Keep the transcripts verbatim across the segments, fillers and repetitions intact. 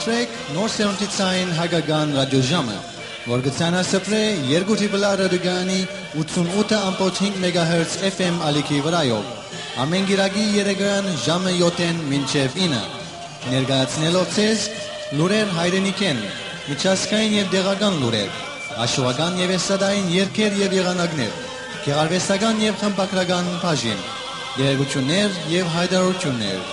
Սպրեք նոր սերունդի ցային հայկական ռադիոժամը, որ կը ցանասպրէ երկու Triple R ռադիոկայանի ութսունութ ըմբոց հինգ մեգահերց F M ալիքի վրայով, ամէն կիրակի երեկոյան ժամը յոթ մինչեւ ինը, ներկայացնելով ձեզ լուրեր հայրենիքէն, միջազգային եւ տեղական լուրեր, աշուական եւ էստրադային երգեր եւ եղանակներ, գեղարուեստական եւ խմբագրական բաժին, տեղեկութիւններ եւ յայտարարութիւններ։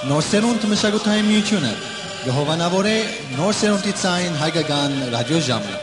Նոր սերունդ մշակութային միութիւնը կը հովանաւորէ նոր սերունդի ցային հայկական ռադիոժամը։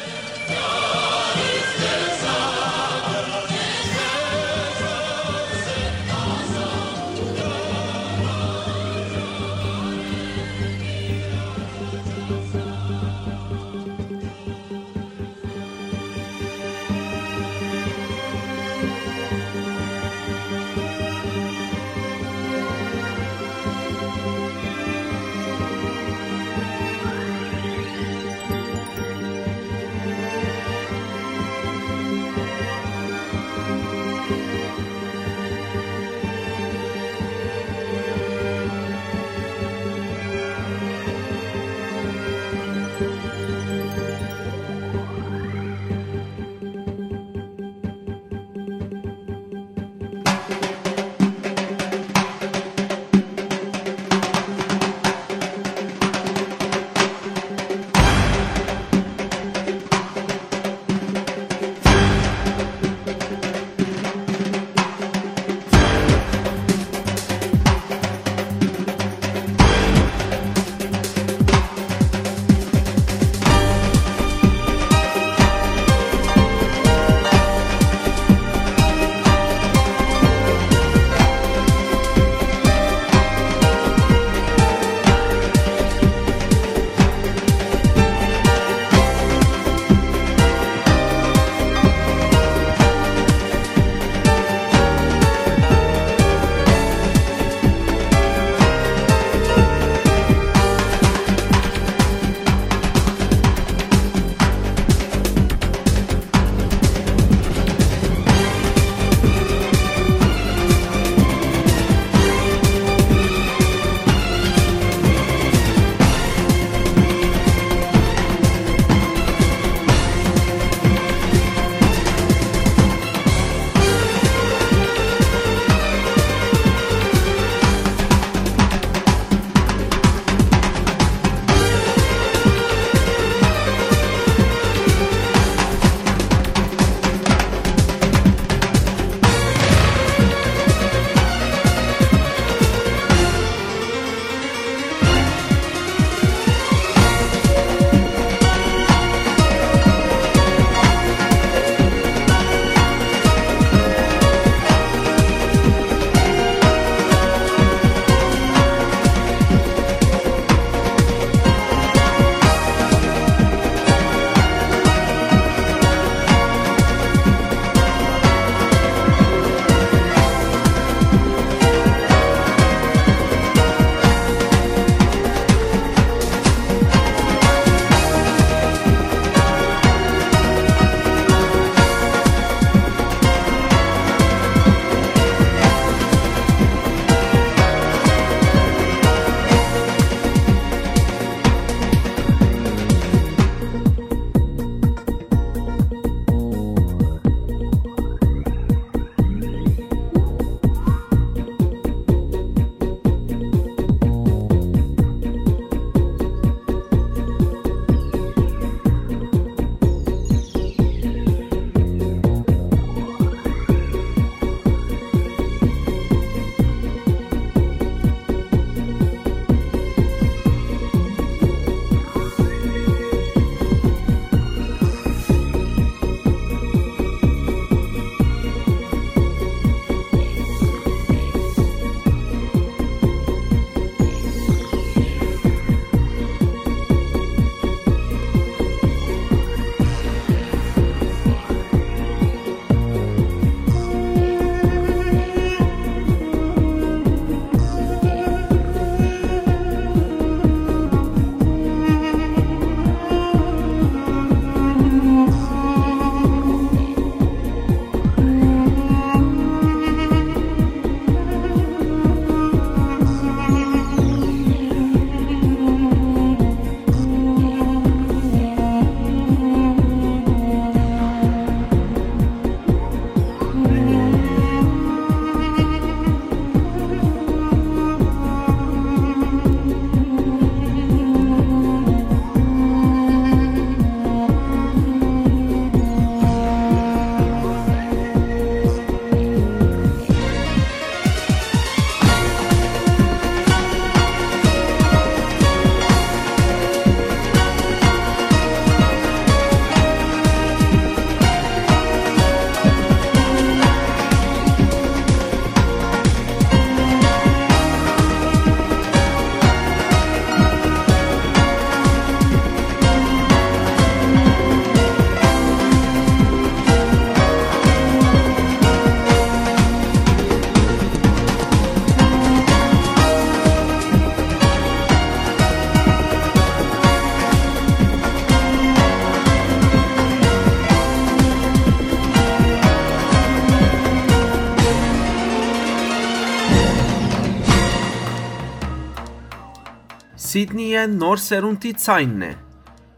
Սիդնիէն նոր սերունդի ձայնն է։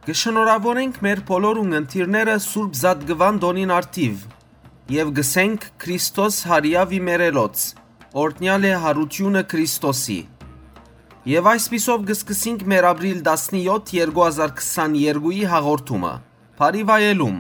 Կը շնորհաւորենք մեր բոլոր ունգընտիրները Սուրբ Զատկուան տօնին առթիւ եւ կ'ըսենք Քրիստոս հարիաւ ի մերելոց, օրհնեալ է հարութիւնը Քրիստոսի։ Եւ այսպիսով կը սկսենք մեր ապրիլ տասնեօթ, երկու հազար քսաներկուի հաղորդումը։ Բարի վայելում։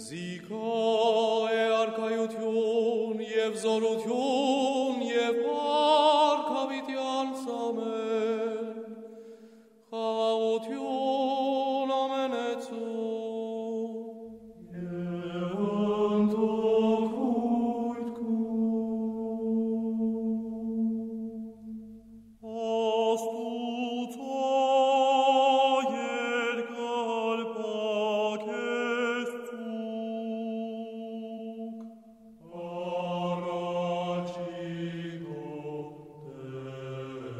Զիգայ է արքայութիւն եւ զօրութիւն եւ փառք յաւիտեանց, ամէն, խաղաղութիւն ամենեցուն։ Եւ ընդօք կու Աստուծոյ երկար պագէս ծուգ, առաջի քո Տէր,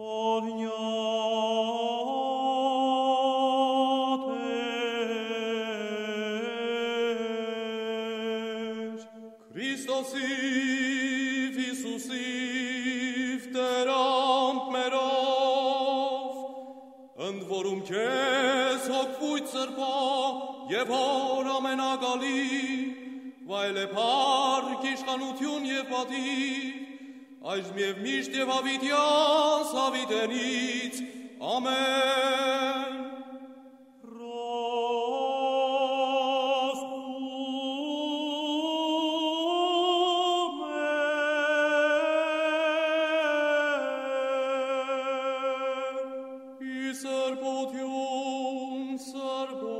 օրհնեալ Որում քեզ հոգ Սուրբոյ եւ Հօր Ամենակալի, վայելե փառք, իշխանութիւն եւ պատիւ, այժմ եւ միշտ եւ յաւիտեանց յաւիտենից։ Ամէն։ Ռոզմէ, ի սրբութիւն սրբոց։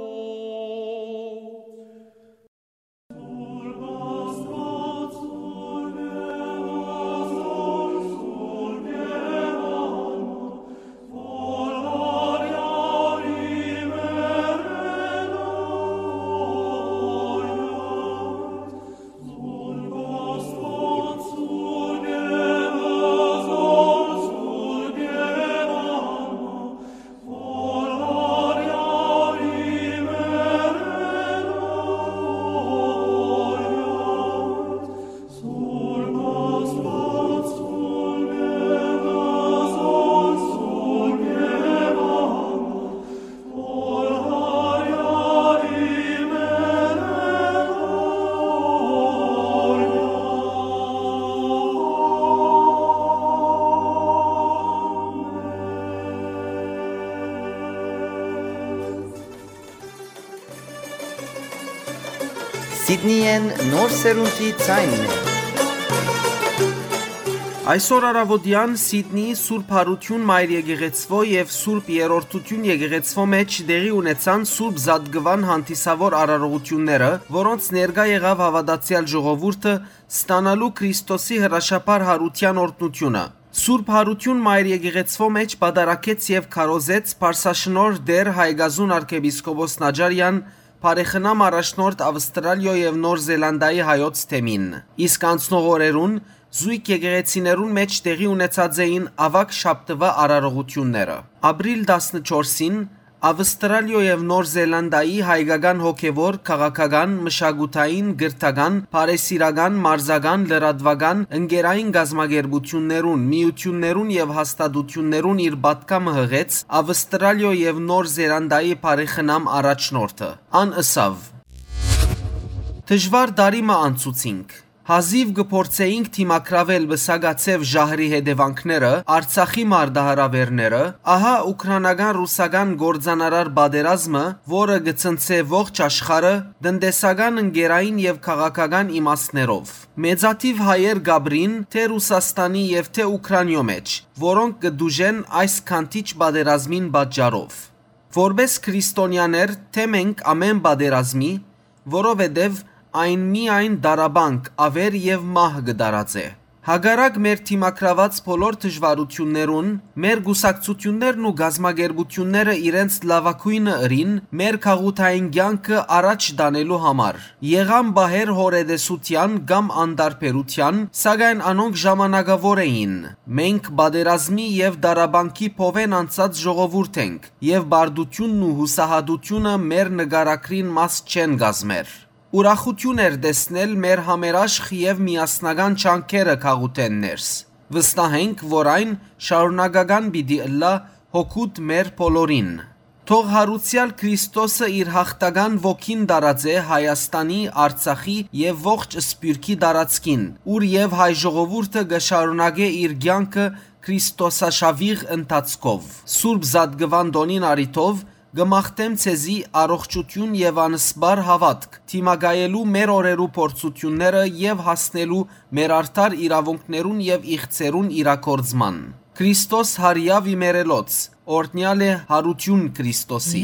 Սիդնիեն նոր սերունդի ձայնն է։ Այսօր առաւօտեան Սիդնիի Սուրբ Յարութիւն Մայր Եկեղեցւոյ եւ Սուրբ Երրորդութիւն Եկեղեցւոյ մէջ տեղի ունեցան Սուրբ Զատկուան հանդիսաւոր արարողութիւնները, որոնց ներկայ եղաւ հաւատացեալ ժողովուրդը, ստանալու Քրիստոսի հրաշափառ յարութեան օրհնութիւնը։ Սուրբ Յարութիւն Մայր Եկեղեցւոյ մէջ պատարագեց եւ քարոզեց Փարսաշնորհ Տէր Հայկազուն արքեպիսկոպոս Նաճարեան, բարեխնամ առաջնորդ Ավստրալիոյ եւ Նոր Զելանդայի հայոց թեմին։ Իսկ անցնող օրերուն զոյգ եկեղեցիներուն մէջ տեղի ունեցած էին աւագ շաբթուայ արարողութիւնները։ Ապրիլ տասնչորսին Ավստրալիոյ եւ Նոր Զելանդայի հայկական հոգեւոր, քաղաքական, մշակութային, կրթական, բարեսիրական, մարզական, լրատուական, ընկերային կազմակերպութիւններուն, միութիւններուն եւ հաստատութիւններուն իր պատգամը յղեց Ավստրալիոյ եւ Նոր Զելանդայի բարեխնամ առաջնորդը։ Ան ըսաւ. «Դժուար տարի մը անցուցինք։ Հազիւ կը փորձէինք դիմագրաւել պսակաձեւ ժահրի հետեւանքները, Արցախի մարտահրաւէրները, ահա ուքրանական-ռուսական կործանարար պատերազմը, որը կը ցնցէ ողջ աշխարհը, տնտեսական, ընկերային եւ քաղաքական իմաստներով։ Մեծաթիւ հայեր կ'ապրին թէ Ռուսաստանի եւ թէ Ուքրանիոյ մէջ, որոնք կը տուժեն այս քանդիչ պատերազմին պատճառով։ Որպէս քրիստոնեաներ թէ մենք ամէն պատերազմի, որովհետեւ այն միայն տառապանք, աւեր եւ մահ կը տարածէ։ Հակառակ մեր դիմագրաւած բոլոր դժուարութիւններուն, մեր կուսակցութիւններն ու կազմակերպութիւնները իրենց լաւագոյնը ըրին մեր գաղութային կեանքը առաջ տանելու համար։ Եղան պահեր հոռետեսութեան կամ անտարբերութեան, սակայն անոնք ժամանակաւոր էին։ Մենք պատերազմի եւ տառապանքի փովէն անցած ժողովուրդ ենք, եւ պարտութիւնն ու յուսահատութիւնը մեր նկարագրին մաս չեն կազմեր։ Ուրախութիւն էր տեսնել մեր համերաշխ եւ միասնական ջանքերը գաղութէն ներս։ Վստահ ենք, որ այն շարունակական պիտի ըլլայ հօգուտ մեր բոլորին։ Թող յարուցեալ Քրիստոսը իր յաղթական ոգին տարածէ Հայաստանի, Արցախի եւ ողջ Սփիւռքի տարածքին, ուր եւ հայ ժողովուրդը կը շարունակէ իր կեանքը քրիստոսաշաւիղ ընթացքով։ Սուրբ Զատկուան տօնին առիթով կը մաղթեմ ձեզի առողջութիւն եւ անսպառ հաւատք, դիմակայելու մեր օրերու փորձութիւնները եւ հասնելու մեր արդար իրաւունքներուն եւ իղձերուն իրագործման։ Քրիստոս յարեաւ իմերելոց, օրհնեալ է յարութիւն Քրիստոսի։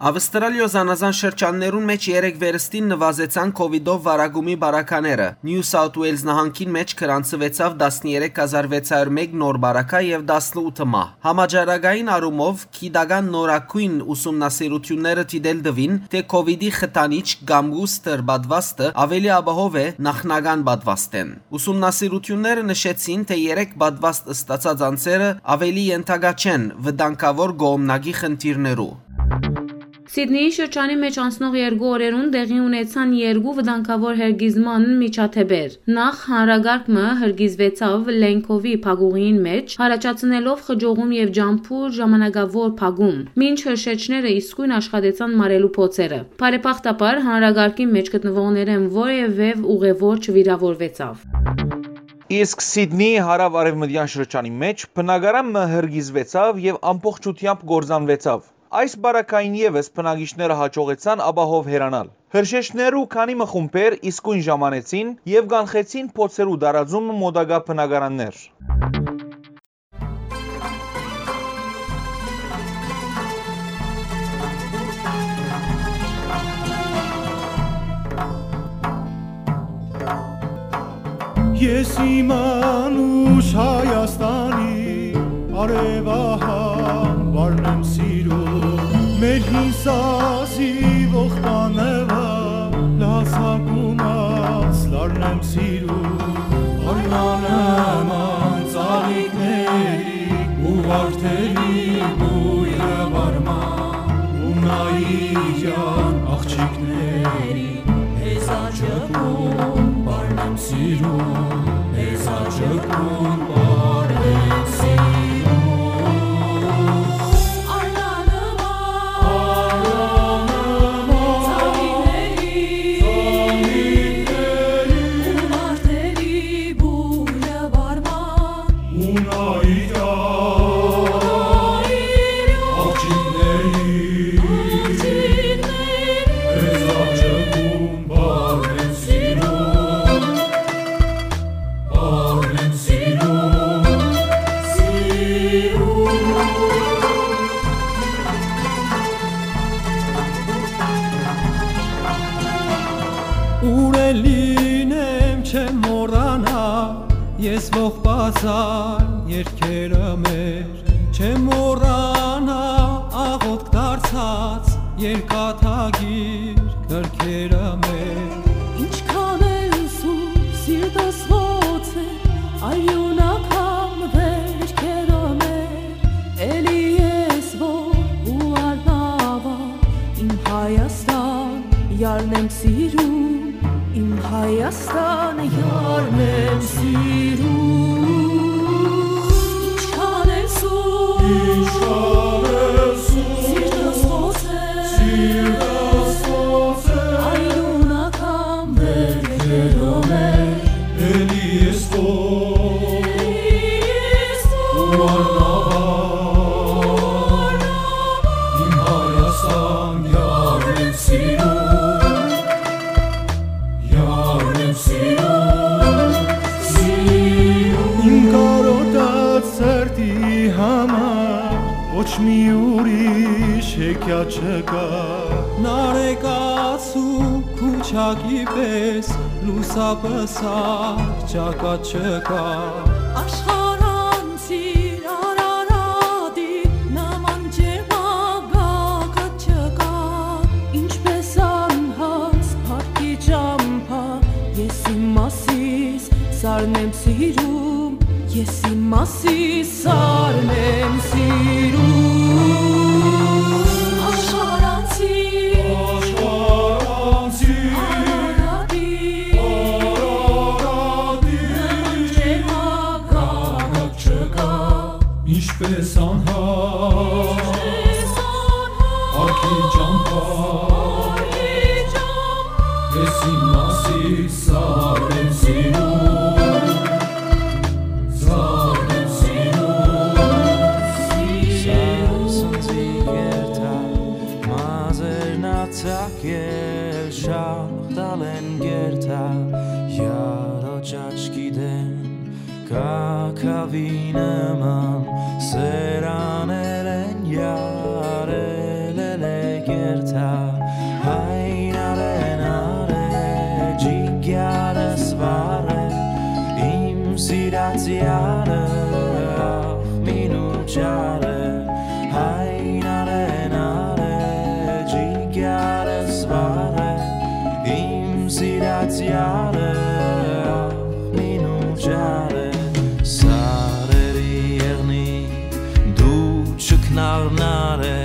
Ավստրալիոյ զանազան շրջաններուն մէջ երեկ վերստին նուազեցան COVID-ով վարակումի բարակաները։ Նիու Սաութ Ուէյլզ նահանգին մէջ գրանցուեցաւ տասներեք հազար վեց հարյուր մէկ նոր բարակայ եւ տասնութ մահ։ Համաճարակային առումով գիտական նորագոյն ուսումնասիրութիւնները դիտել տուին, թէ COVID-ի խթանիչ կամ booster պատուաստը աւելի ապահով է նախնական պատուաստէն։ Ուսումնասիրութիւնները նշեցին, թէ երեք պատուաստ ստացած անձերը աւելի ենթակայ չեն վտանգաւոր կողմնակի խնդիրներու։ Սիդնիի շրջանի մէջ անցնող երկու օրերուն տեղի ունեցան երկու վտանգաւոր հրկիզման միջադէպեր։ Նախ, հանրակարգ մը հրկիզուեցաւ Լենքովի փակուղիին մէջ, յառաջացնելով խճողում եւ ճամբուր ժամանակաւոր փակում, մինչ հրշեջները իսկոյն աշխատեցան մարելու փոցերը։ Բարեբախտաբար, հանրակարգի մէջ գտնուողներէն որեւէ ուղեւոր չվիրաւորուեցաւ։ Իսկ Սիդնիի հարաւ-արեւմտեան շրջանի մէջ բնակարան մը հրկիզուեցաւ եւ ամբողջութեամբ կործանուեցաւ։ Այս բարակային եւս բնակիչները յաջողեցան ապահով հեռանալ։ Հրշեջներու քանի մը խումբեր իսկոյն ժամանեցին եւ կանխեցին փոցերու տարածումը մօտակայ բնակարաններ։ Ես իմ անուշ Հայաստանի արեւահան վարն եմ սիրում, մեր հին սազի ողբանևա լազակումած լարն եմ սիրում, արնանման ծաղիկների ու վարդերի բույրը վարման ու նայիրյան աղջիկների Հեզաճկուն պարն եմ սիրում, հեզաճկուն պարն եմ սիրում։ Արնանման, արնանման, ծաղիկների, ծաղիկների, ու վարդերի բույրը վարման, ու նայիրան, աղջիկների, աղջիկների, հեզաճկուն պարն եմ սիրում, պարն եմ սիրում, սիրում։ Ուր էլ լինեմ, չեմ մոռանա, ես ողբազան երկերը մեր, չեմ մոռանա, աղոթք դարձած երկաթագիր գրքերը մեր։ Ինչքան էլ սուր սիրտս ղոց է, արիունական վերքերը մեր, էլի ես որ ու արնավա, իմ Հայաստան, յարն եմ սիրում, իմ Հայաստան, յարն եմ սիրում։ Ինչքան էլ սուր, ինչքան էլ սուր, սիրտս ղոց է, սիրտս ղոց է, արիունական վերքերով է, էլի ես քո, էլի ես քո, ու արնավա, իմ Հայաստան, յարն եմ սիրում, յարն եմ սիրում, սիրում։ Իմ կարոտած սրտի համար ոչ մի ուրիշ հեքիաթ չկա։ Նարեկացու քուչակի պես լուսապսակ ճակատ չկա։ Աշխարհանցիր Արարատի նման ջերմագագաթ չկա, ինչպես անհաս փառքի ճամբա, ես իմ մասիս սարն եմ սիրում, ես իմ մասիս սարն եմ սիրում։ Աշխարհանցի, աշխարհանցի, Արարատի, Արարատի, նման ջերմագագաթ չկա, ինչպես անհաս, ինչպես անհաս, փառքի ճամբա, փառքի ճամբա, ես իմ մասիս սարն եմ սիրում, սարն եմ սիրում, սիրում։ Սանձի գերտա, մազերնացակ ել շաղ տալ են գերտա, յարոճ աչքի դեմ, կակավի նման սերաներ են, յարել էլ է գերտա։ Սիրած յարը, ախ, մինու չարը, հայ նարը, նարը, ջիկյարս վարը, իմ սիրած յարը, ախ, մինու չարը, սարերի եղնի, դու չքնաղ նարը,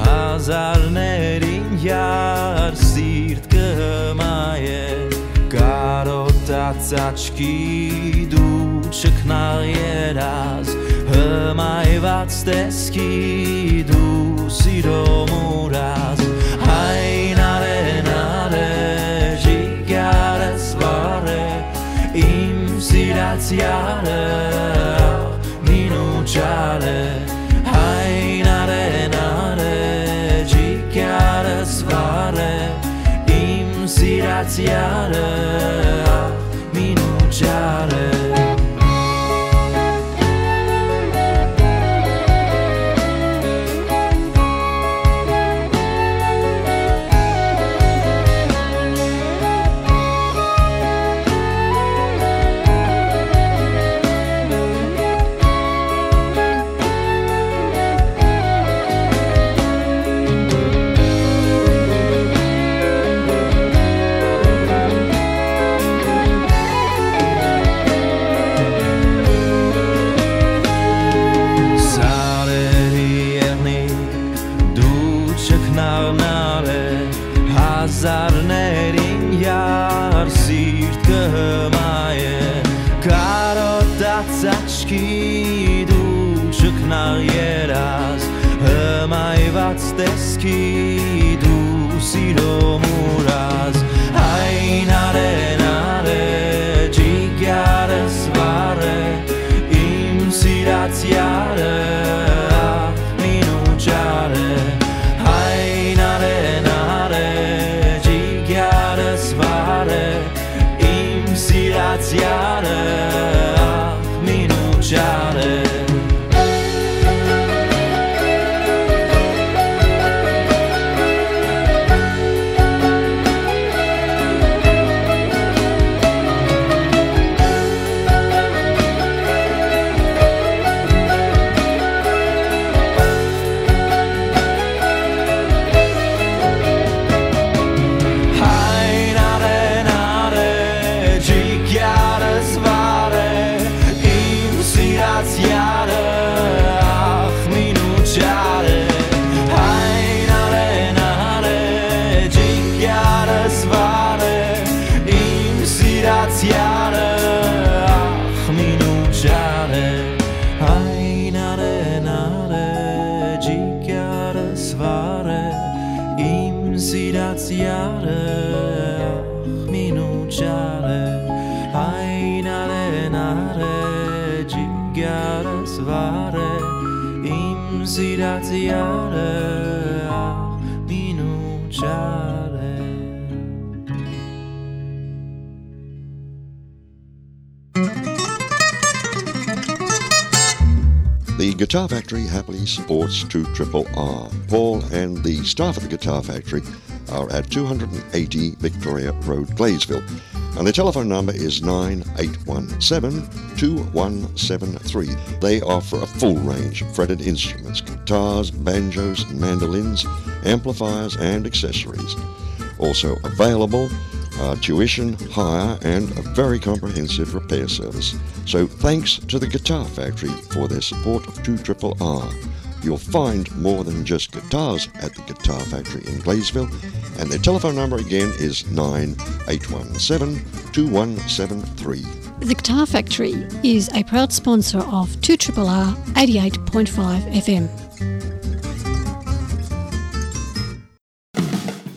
հազարներին յար սիրտ կը հմայէ, կարոտած աչքի դու չքնաղ երազ, հմայված տեսքի դու սիրո մուրազ, հայ նարէ, նարէ, ջիկյարս վարէ, իմ սիրած յարը, մինու չարը, հայ նարէ, նարէ, ջիկյարս վարէ, իմ սիրած յարը, մինու չարը։ Սարերի եղնիկ, դու չքնաղ նարէ, հազարներին յար սիրտ կը հմայէ, կարոտած աչքի դու չքնաղ երազ, հմայված տեսքի դու սիրո մուրազ, հայ նարէ, նարէ, ջիկյարս վարէ, իմ սիրած յարը, ախ, մինու չարը, հայ նարէ, նարէ, ջիկյարս վարէ, իմ սիրած յարը, ախ, մինու չարը։ Հայ նարէ, նարէ, ջիկյարս վարէ, իմ սիրած յարը, ախ, մինու չարը։ Հայ նարէ, նարէ, ջիկյարս վարէ, իմ սիրած յարը, ախ, մինու չարը։ Հայ նարէ, նարէ, ջիկյարս վարէ, իմ սիրած յարը, ախ, մինու չարը։ Հայ նարէ, նարէ, ջիկյարս վարէ, իմ սիրած յարը, ախ, մինու չարը։ The Guitar Factory happily supports two triple R. Paul and the staff at the Guitar Factory are at two hundred and eighty Victoria Road, Gladesville. And the telephone number is nine eight one seven, two one seven three. They offer a full range of fretted instruments, guitars, banjos, mandolins, amplifiers, and accessories. Also available, uh, tuition, hire, and a very comprehensive repair service. So thanks to the Guitar Factory for their support of two triple R. You'll find more than just guitars at the Guitar Factory in Gladesville, and their telephone number again is nine eight one seven, two one seven three. The Guitar Factory is a proud sponsor of two triple R eighty-eight point five F M.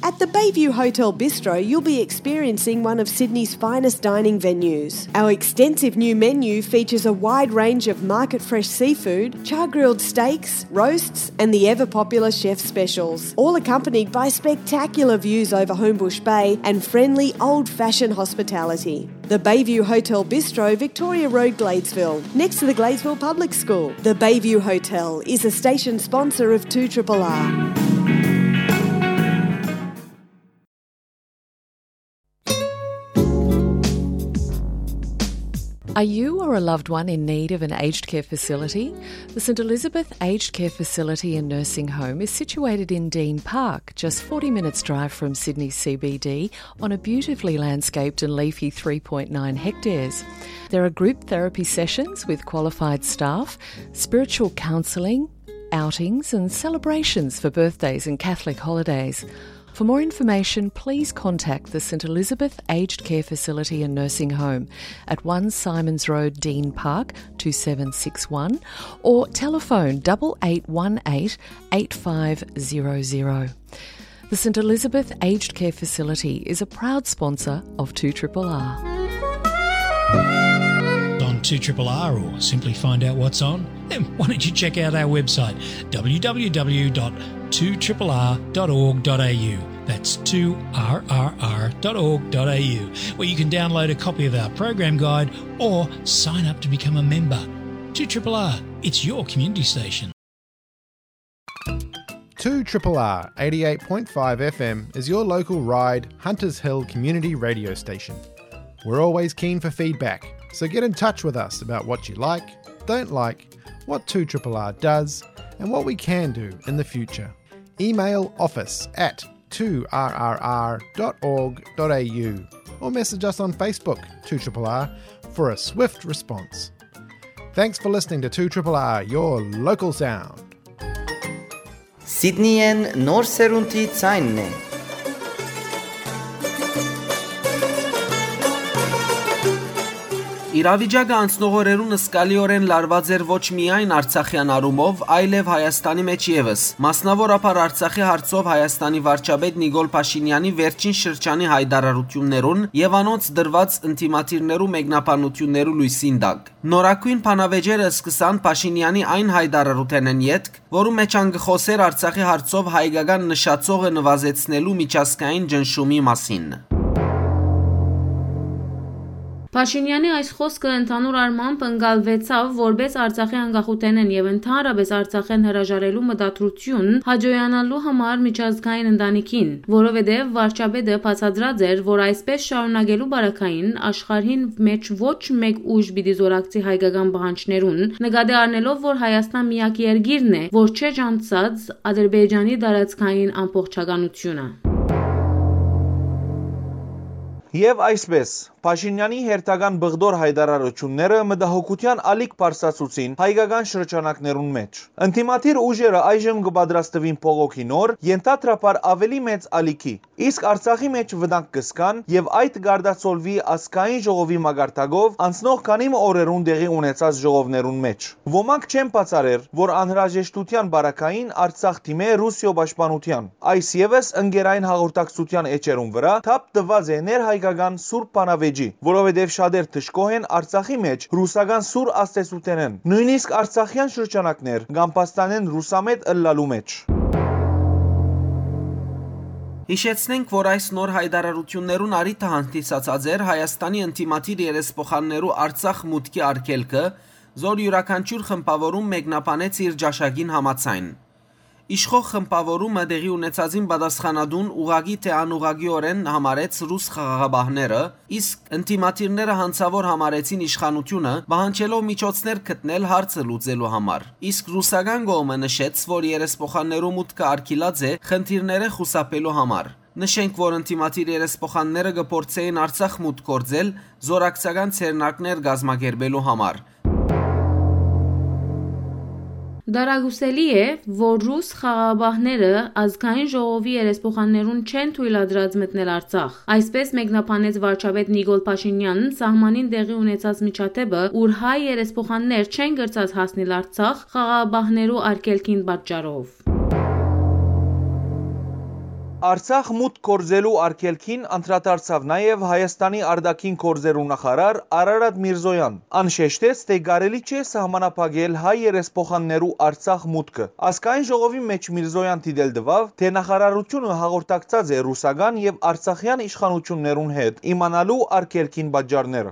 At the Bayview Hotel Bistro, you'll be experiencing one of Sydney's finest dining venues. Our extensive new menu features a wide range of market fresh seafood, char grilled steaks, roasts, and the ever popular chef specials, all accompanied by spectacular views over Homebush Bay and friendly old fashioned hospitality. The Bayview Hotel Bistro, Victoria Road, Gladesville, next to the Gladesville Public School. The Bayview Hotel is a station sponsor of two triple R. Are you or a loved one in need of an aged care facility? The St Elizabeth Aged Care Facility and Nursing Home is situated in Dean Park, just forty minutes' drive from Sydney C B D, on a beautifully landscaped and leafy three point nine hectares. There are group therapy sessions with qualified staff, spiritual counselling, outings, and celebrations for birthdays and Catholic holidays. For more information, please contact the St Elizabeth Aged Care Facility and Nursing Home at one Simons Road, Dean Park, two seven six one, or telephone double eight one eight eight five zero zero. The St Elizabeth Aged Care Facility is a proud sponsor of two triple R. On two triple R, or simply find out what's on, then why don't you check out our website, w w w dot two triple r dot org dot a u. That's two r r r dot org dot a u, where you can download a copy of our program guide or sign up to become a member. Two triple R, it's your community station. two triple R eighty-eight point five F M is your local Ryde Hunters Hill community radio station. We're always keen for feedback, so get in touch with us about what you like, don't like, what two triple R does, and what we can do in the future. Email office at two r r r dot org dot a u or message us on Facebook, two triple R, for a swift response. Thanks for listening to two triple R, your local sound. Սիդնիեն նոր սերունդի ձայնն է։ Իրավիճակը անցնող օրերուն զգալիօրէն լարուած էր ոչ միայն արցախեան առումով, այլեւ Հայաստանի մէջ եւս, մասնաւորաբար Արցախի հարցով Հայաստանի վարչապետ Նիկոլ Փաշինեանի վերջին շրջանի յայտարարութիւններուն եւ անոնց տրուած ընդդիմադիրներու մեկնաբանութիւններու լոյսին տակ։ Նորագոյն բանավեճերը սկսան Փաշինեանի այն յայտարարութենէն ետք, որու մէջ ան կը խօսէր Արցախի հարցով հայկական նշաձողը նուազեցնելու միջազգային ճնշումի մասին։ Փաշինեանի այս խօսքը ընդհանուր առմամբ ընկալուեցաւ որպէս Արցախի անկախութենէն եւ ընդհանրապէս Արցախէն հրաժարելու մտադրութիւն հաճոյանալու համար միջազգային ընտանիքին, որովհետեւ վարչապետը բացատրած էր, որ այսպէս շարունակելու պարագային աշխարհին մէջ ոչ մէկ ուժ պիտի զօրակցի հայկական պահանջներուն, նկատի առնելով, որ Հայաստան միակ երկիրն է, որ չէ ճանչցած Ադրբեջանի տարածքային ամբողջականությունը։ Եւ այսպէս, Փաշինեանի հերթական բղդոր յայտարարութիւնները մտահոգութեան ալիք բարձրացուցին հայկական շրջանակներուն մէջ։ Ընդդիմադիր ուժերը այժմ կը պատրաստուին բողոքի նոր, ենթադրաբար աւելի մեծ ալիքի, իսկ Արցախի մէջ վտանգ կը զգան եւ այդ կ'արտացոլուի ազգային ժողովի մակարդակով անցնող քանի մը օրերուն տեղի ունեցած ժողովներուն մէջ։ Ոմանք չեն բացառեր, որ անհրաժեշտութեան պարագային Արցախ դիմէ Ռուսիոյ պաշտպանութեան։ Այս եւս ընկերային հաղորդակցութեան էջերուն վրայ թափ տուած է ներհայկական սուր բանավեճի, որովհետեւ շատեր դժգոհ են Արցախի մէջ ռուսական սուր ազդեցութենէն։ Նոյնիսկ արցախեան շրջանակներ կ'ամբաստանեն ռուսամետ ըլլալու մէջ։ Յիշեցնենք, որ այս նոր յայտարարութիւններուն առիթը հանդիսացած էր Հայաստանի ընդդիմադիր երեսփոխաններու Արցախ մուտքի արգելքը, զոր իւրաքանչիւր խմբաւորում մեկնաբանեց իր ճաշակին համաձայն։ Իշխող խմբաւորումը տեղի ունեցածին պատասխանատուն ուղղակի թէ անուղղակիօրէն համարեց ռուս խաղաղապահները, իսկ ընդդիմադիրները յանցաւոր համարեցին իշխանութիւնը, պահանջելով միջոցներ գտնել հարցը լուծելու համար։ Իսկ ռուսական կողմը նշեց, որ երեսփոխաններու մուտքը արգիլած է խնդիրները խուսափելու համար։ Նշենք, որ ընդդիմադիր երեսփոխանները կը փորձէին Արցախ մուտք գործել, զօրակցական ձեռնարկներ կազմակերպելու համար։ Դարակուսելի է, որ ռուս խաղաղապահները ազգային ժողովի երեսփոխաններուն չեն թոյլատրած մտնել Արցախ։ Այսպէս մեկնաբանեց վարչապետ Նիկոլ Փաշինեան սահմանին տեղի ունեցած միջադէպը, ուր հայ երեսփոխաններ չեն կրցած հասնիլ Արցախ խաղաղապահներու արգելքին պատճառով։ Արցախ մուտք գործելու արգելքին անդրադարձաւ նաեւ Հայաստանի արտաքին գործերու նախարար Արարատ Միրզոյան։ Ան շեշտեց, թէ կարելի չէ սահմանափակել հայ երեսփոխաններու Արցախ մուտքը։ Ազգային ժողովի մէջ Միրզոյան դիտել տուաւ, թէ նախարարութիւնը հաղորդակցած է ռուսական եւ արցախեան իշխանութիւններուն հետ՝ իմանալու արգելքին պատճառները։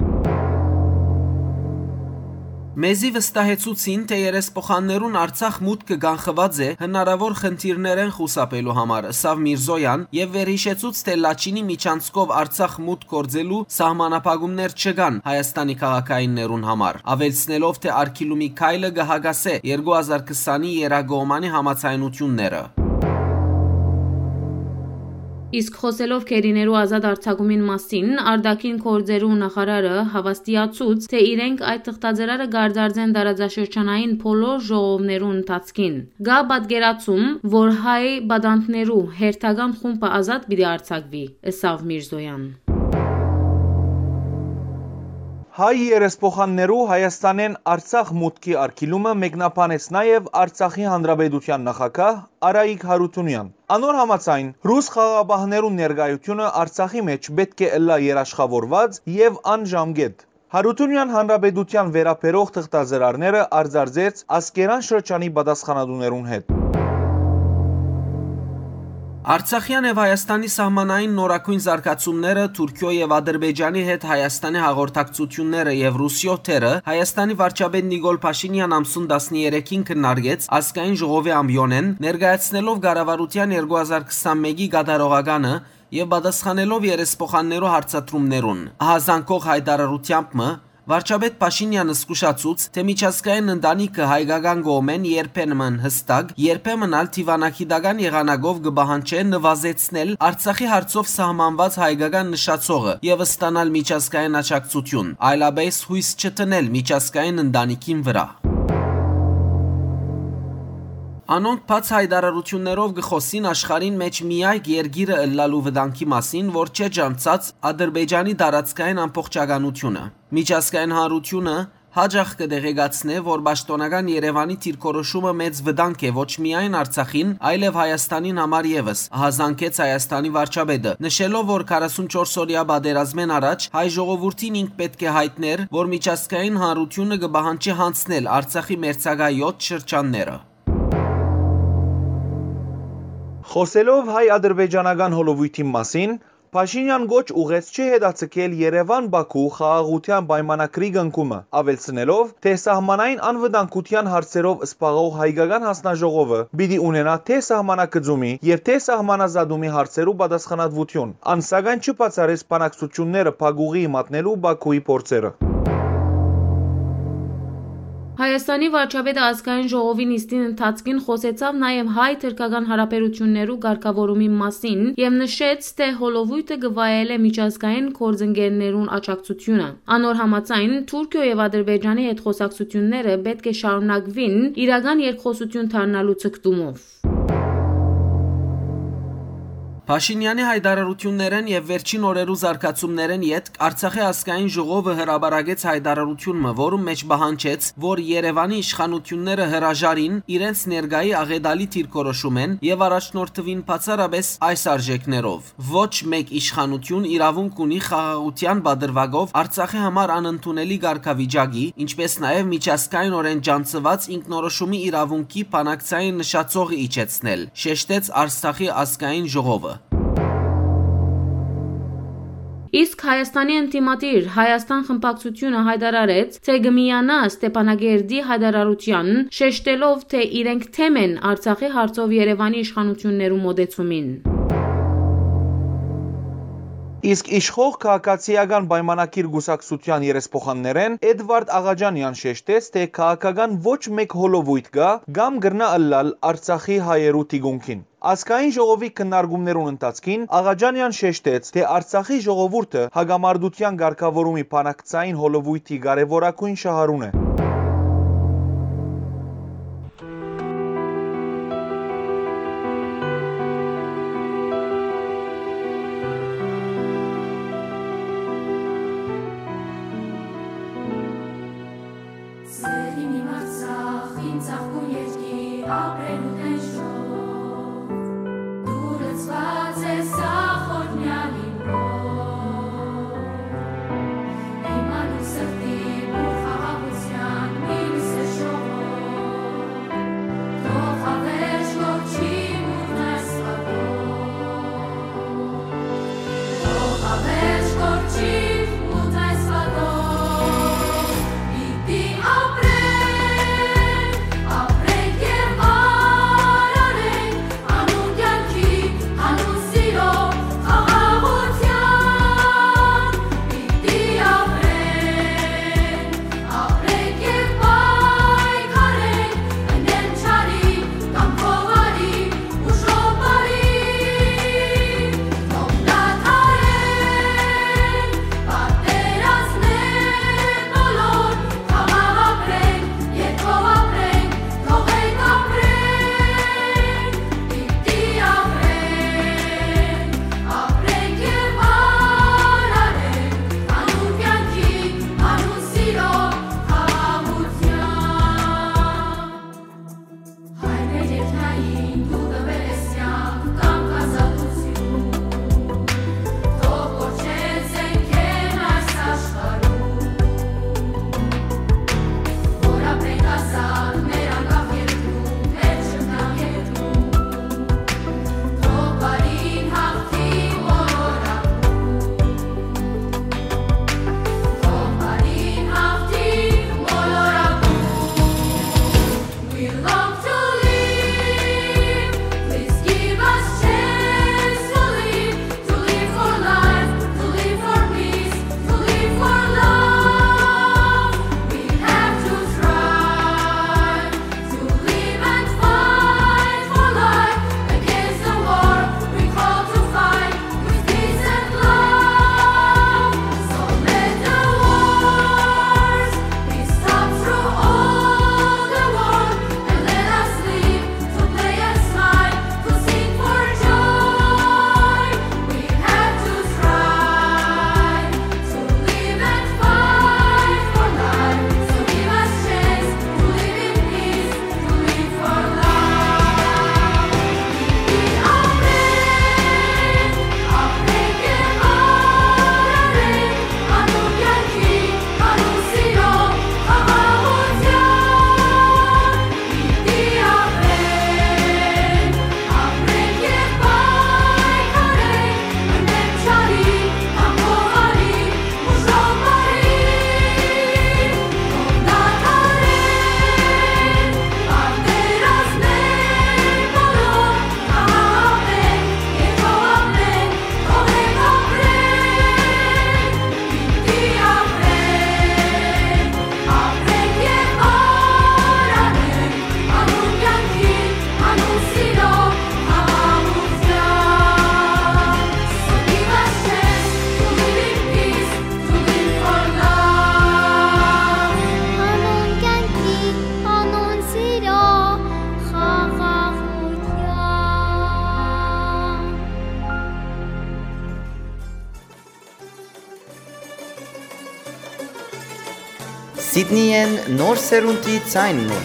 Մեզի վստահեցուցին, թէ երեսփոխաններուն Արցախ մուտքը կանխուած է հնարաւոր խնդիրներէն խուսափելու համար, ըսաւ Միրզոյան եւ վերհիշեցուց, թէ Լաչինի միջանցքով Արցախ մուտք գործելու սահմանափակումներ չկան Հայաստանի քաղաքայիններուն համար, աւելցնելով, թէ արգիլումի քայլը կը հակասէ երկու հազար քսանի եռակողմանի համաձայնութիւնները։ Իսկ խօսելով գերիներու ազատ արձակումին մասին, արտաքին գործերու նախարարը հաւաստիացուց, թէ իրենք այդ թղթածրարը կարձարծեն տարածաշրջանային բոլոր ժողովներու ընթացքին։ Կայ պատկերացում, որ հայ պատանդներու հերթական խումբը ազատ պիտի արձակուի, ըսաւ Միրզոյան։ Հայ երեսփոխաններու Հայաստանէն Արցախ մուտքի արգիլումը մեկնաբանեց նաեւ Արցախի Հանրապետության նախագահ Արայիկ Հարութունեան։ Անոր համաձայն, ռուս խաղաղապահներուն ներկայութիւնը Արցախի մէջ պէտք է ըլլայ երաշխաւորուած եւ անժամկէտ։ Հարութունեան Հանրապետութեան վերաբերող թղթածրարները արձարծեց Ասկերան շրջանի պատասխանատուներուն հետ։ Արցախեան եւ Հայաստանի սահմանային նորագոյն զարգացումները, Թուրքիոյ եւ Ադրբեջանի հետ Հայաստանի հաղորդակցությունները եւ Ռուսիոյ թերը Հայաստանի վարչապետ Նիկոլ Փաշինեան ամսուն տասներեքին քննարկեց ազգային ժողովի ամբիոնէն, ներկայացնելով կառավարութեան երկու հազար քսանմէկի կատարողականը եւ պատասխանելով երեսփոխաններու հարցադրումներուն։ Ահազանգող հայտարարութեամբ մը, վարչապետ Փաշինեանը զգուշացուց, թէ միջազգային ընտանիքը հայկական կողմէն երբեմն հստակ, երբեմն ալ դիվանագիտական եղանակով կը պահանջէ նվազեցնել Արցախի հարցով սահմանուած հայկական նշացողը եւ ստանալ միջազգային աջակցություն, այլապէս յոյս չդնել միջազգային ընտանիքին վրայ։ Անոնք բաց հայտարարութիւններով կը խօսին աշխարհին մէջ միայնակ երկիրը ըլլալու վտանգի մասին, որ չէ ճանչցած Ադրբեջանի տարածքային ամբողջականությունը։ Միջազգային հանրութիւնը յաճախ կը տեղեկացնէ, որ պաշտօնական Երեւանի դիրքորոշումը մեծ վտանգ է ոչ միայն Արցախին, այլեւ Հայաստանին համար եւս, ահազանգեց Հայաստանի վարչապետը, նշելով, որ քառասունչորս օրեայ պատերազմէն առաջ հայ ժողովուրդին ինք պէտք է յայտնէր, որ միջազգային հանրութիւնը կը պահանջի յանցնել Արցախի մերձակայ յոթ շրջանները։ Խօսելով հայ-ադրբեջանական հոլովոյթին մասին, Փաշինեան կոչ ուղղեց չհետաձգել Երեւան-Բաքու խաղաղութեան պայմանագրի կնքումը, աւելցնելով, թէ սահմանային անվտանգութեան հարցերով զբաղող հայկական յանձնաժողովը պիտի ունենայ թէ սահմանագծումի եւ թէ սահմանազատումի հարցերու պատասխանատուութիւն։ Ան, սակայն, չբացառեց բանակցութիւնները փակուղիի մատնելու Բաքուի փորձերը։ Հայաստանի վարչապետը ազգային ժողովի նիստին ընթացքին խօսեցաւ նաեւ հայ-թրքական հարաբերութիւններու կարգաւորումի մասին եւ նշեց, թէ հոլովոյթը կը վայելէ միջազգային գործընկերներուն աջակցութիւնը։ Անոր համաձայն, Թուրքիոյ եւ Ադրբեջանի հետ խօսակցութիւնները պէտք է շարունակուին իրական երկխօսութիւն դառնալու ձգտումով։ Փաշինեանի յայտարարութիւններէն եւ վերջին օրերու զարգացումներէն ետք Արցախի ազգային ժողովը հրապարակեց յայտարարութիւն մը, որուն մէջ պահանջեց, որ Երեւանի իշխանութիւնները հրաժարին իրենց ներկայի աղէտալի դիրքորոշումէն եւ առաջնորդուին բացառապէս այս արժէքներով։ Ոչ մէկ իշխանութիւն իրաւունք ունի խաղաղութեան պատրուակով Արցախի համար անընդունելի կարգավիճակի, ինչպէս նաեւ միջազգայինօրէն ճանչցուած ինքնորոշումի իրաւունքի բանակցային նշացողը իջեցնել, շեշտեց Արցախի ազգային ժողովը։ Իսկ Հայաստանի ընդդիմադիր Հայաստան խմբակցութիւնը յայտարարեց, թէ կը միանայ Ստեփանակերտի յայտարարութեան, շեշտելով, թէ իրենք թեմ են Արցախի հարցով Երեւանի իշխանութիւններու մօտեցումին։ Իսկ իշխող Քաղաքացիական պայմանագիր կուսակցութեան երեսփոխաններէն Էդվարդ Աղաջանեան շեշտեց, թէ քաղաքական ոչ մէկ հոլովոյթ կայ կամ կրնայ ըլլալ Արցախի հայերու թիկունքին։ Ազգային ժողովի քննարկումներուն ընթացքին Աղաջանեան շեշտեց, թէ Արցախի ժողովուրդը հակամարտութեան կարգաւորումի բանակցային հոլովոյթի կարեւորագոյն շահառուն է։ Սեր իմ, իմ Արցախ, իմ ծաղկուն երկիր, ապրելու տենչով, դու լցված ես ախորնյալ իմ հոր, իմ անուն սրտի բուռ խաղաղության Սիդնիէն նոր սերունդի ձայնն է։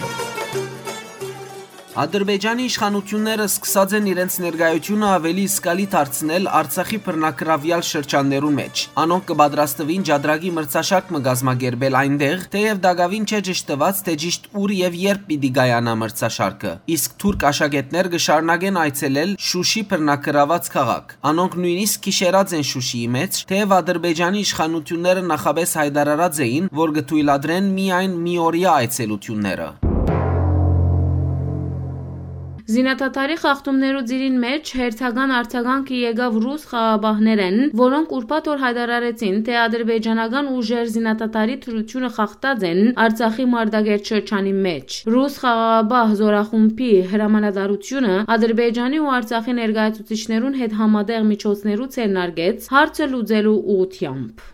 Ադրբեջանի իշխանութիւնները սկսած են իրենց ներկայութիւնը աւելի զգալի դարձնել Արցախի բռնակրաւեալ շրջաններուն մէջ։ Անոնք կը պատրաստուին Ջադրագի մրցաշարք մը կազմակերպել այնտեղ, թէեւ տակաւին չէ ճշդուած, թէ ճիշդ ուր եւ երբ պիտի կայանայ մրցաշարքը, իսկ թուրք աշակերտներ կը շարունակեն այցելել Շուշի բռնակրաւած քաղաք։ Անոնք նոյնիսկ գիշերած են Շուշիի մէջ, թէեւ Ադրբեջանի իշխանութիւնները նախապէս յայտարարած էին, որ կը թոյլատրեն միայն միօրեայ այցելութիւնները։ Զինադադարի խախտումներու ծիրին մէջ հերթական արձագանքը եկաւ ռուս խաղաղապահներէն, որոնք ուրբաթ օր յայտարարեցին, թէ ադրբեջանական ուժեր զինադադարի դրութիւնը խախտած են Արցախի Մարտակերտ շրջանի մէջ։ Ռուս խաղաղապահ զօրախումբի հրամանատարութիւնը Ադրբեջանի ու Արցախի ներկայացուցիչներուն հետ համատեղ միջոցներու ձեռնարկեց հարցը լուծելու ուղղութեամբ։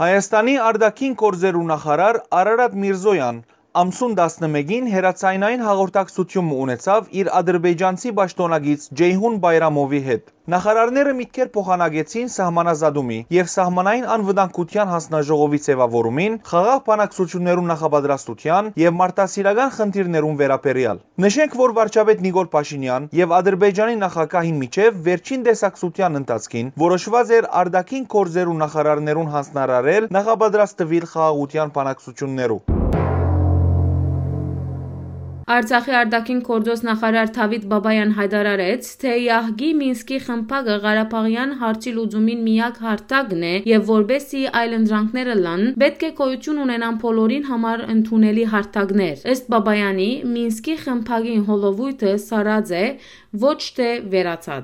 Հայաստանի արտաքին գործերու նախարար Արարատ Միրզոյան ամսուն տասնմէկին հեռաձայնային հաղորդակցութիւն մը ունեցաւ իր ադրբեջանցի պաշտօնակից Ջեյհուն Բայրամովի հետ։ Նախարարները միտքեր փոխանակեցին սահմանազատումի եւ սահմանային անվտանգութեան հանձնաժողովի ձեւաւորումին, խաղաղ բանակցութիւններու նախապատրաստութեան եւ մարդասիրական խնդիրներուն վերաբերեալ։ Նշենք, որ վարչապետ Նիկոլ Փաշինեան եւ Ադրբեջանի նախագահին միջեւ վերջին տեսակցութեան ընթացքին որոշուած էր արտաքին գործերու նախարարներուն հանձնարարել նախապատրաստուիլ խաղաղութեան բանակցութիւններու։ Արցախի արտաքին գործոց նախարար Դավիթ Բաբայան յայտարարեց, թէ յահկի Մինսկի խմբակը Ղարաբաղեան հարցի լուծումին միակ հարթակն է եւ որպէսզի այլընտրանքներ ըլլան, պէտք է գոյութիւն ունենան բոլորին համար ընդունելի հարթակներ։ Ըստ Բաբայանի, Մինսկի խմբակին հոլովոյթը սառած է, ոչ թէ վերացած։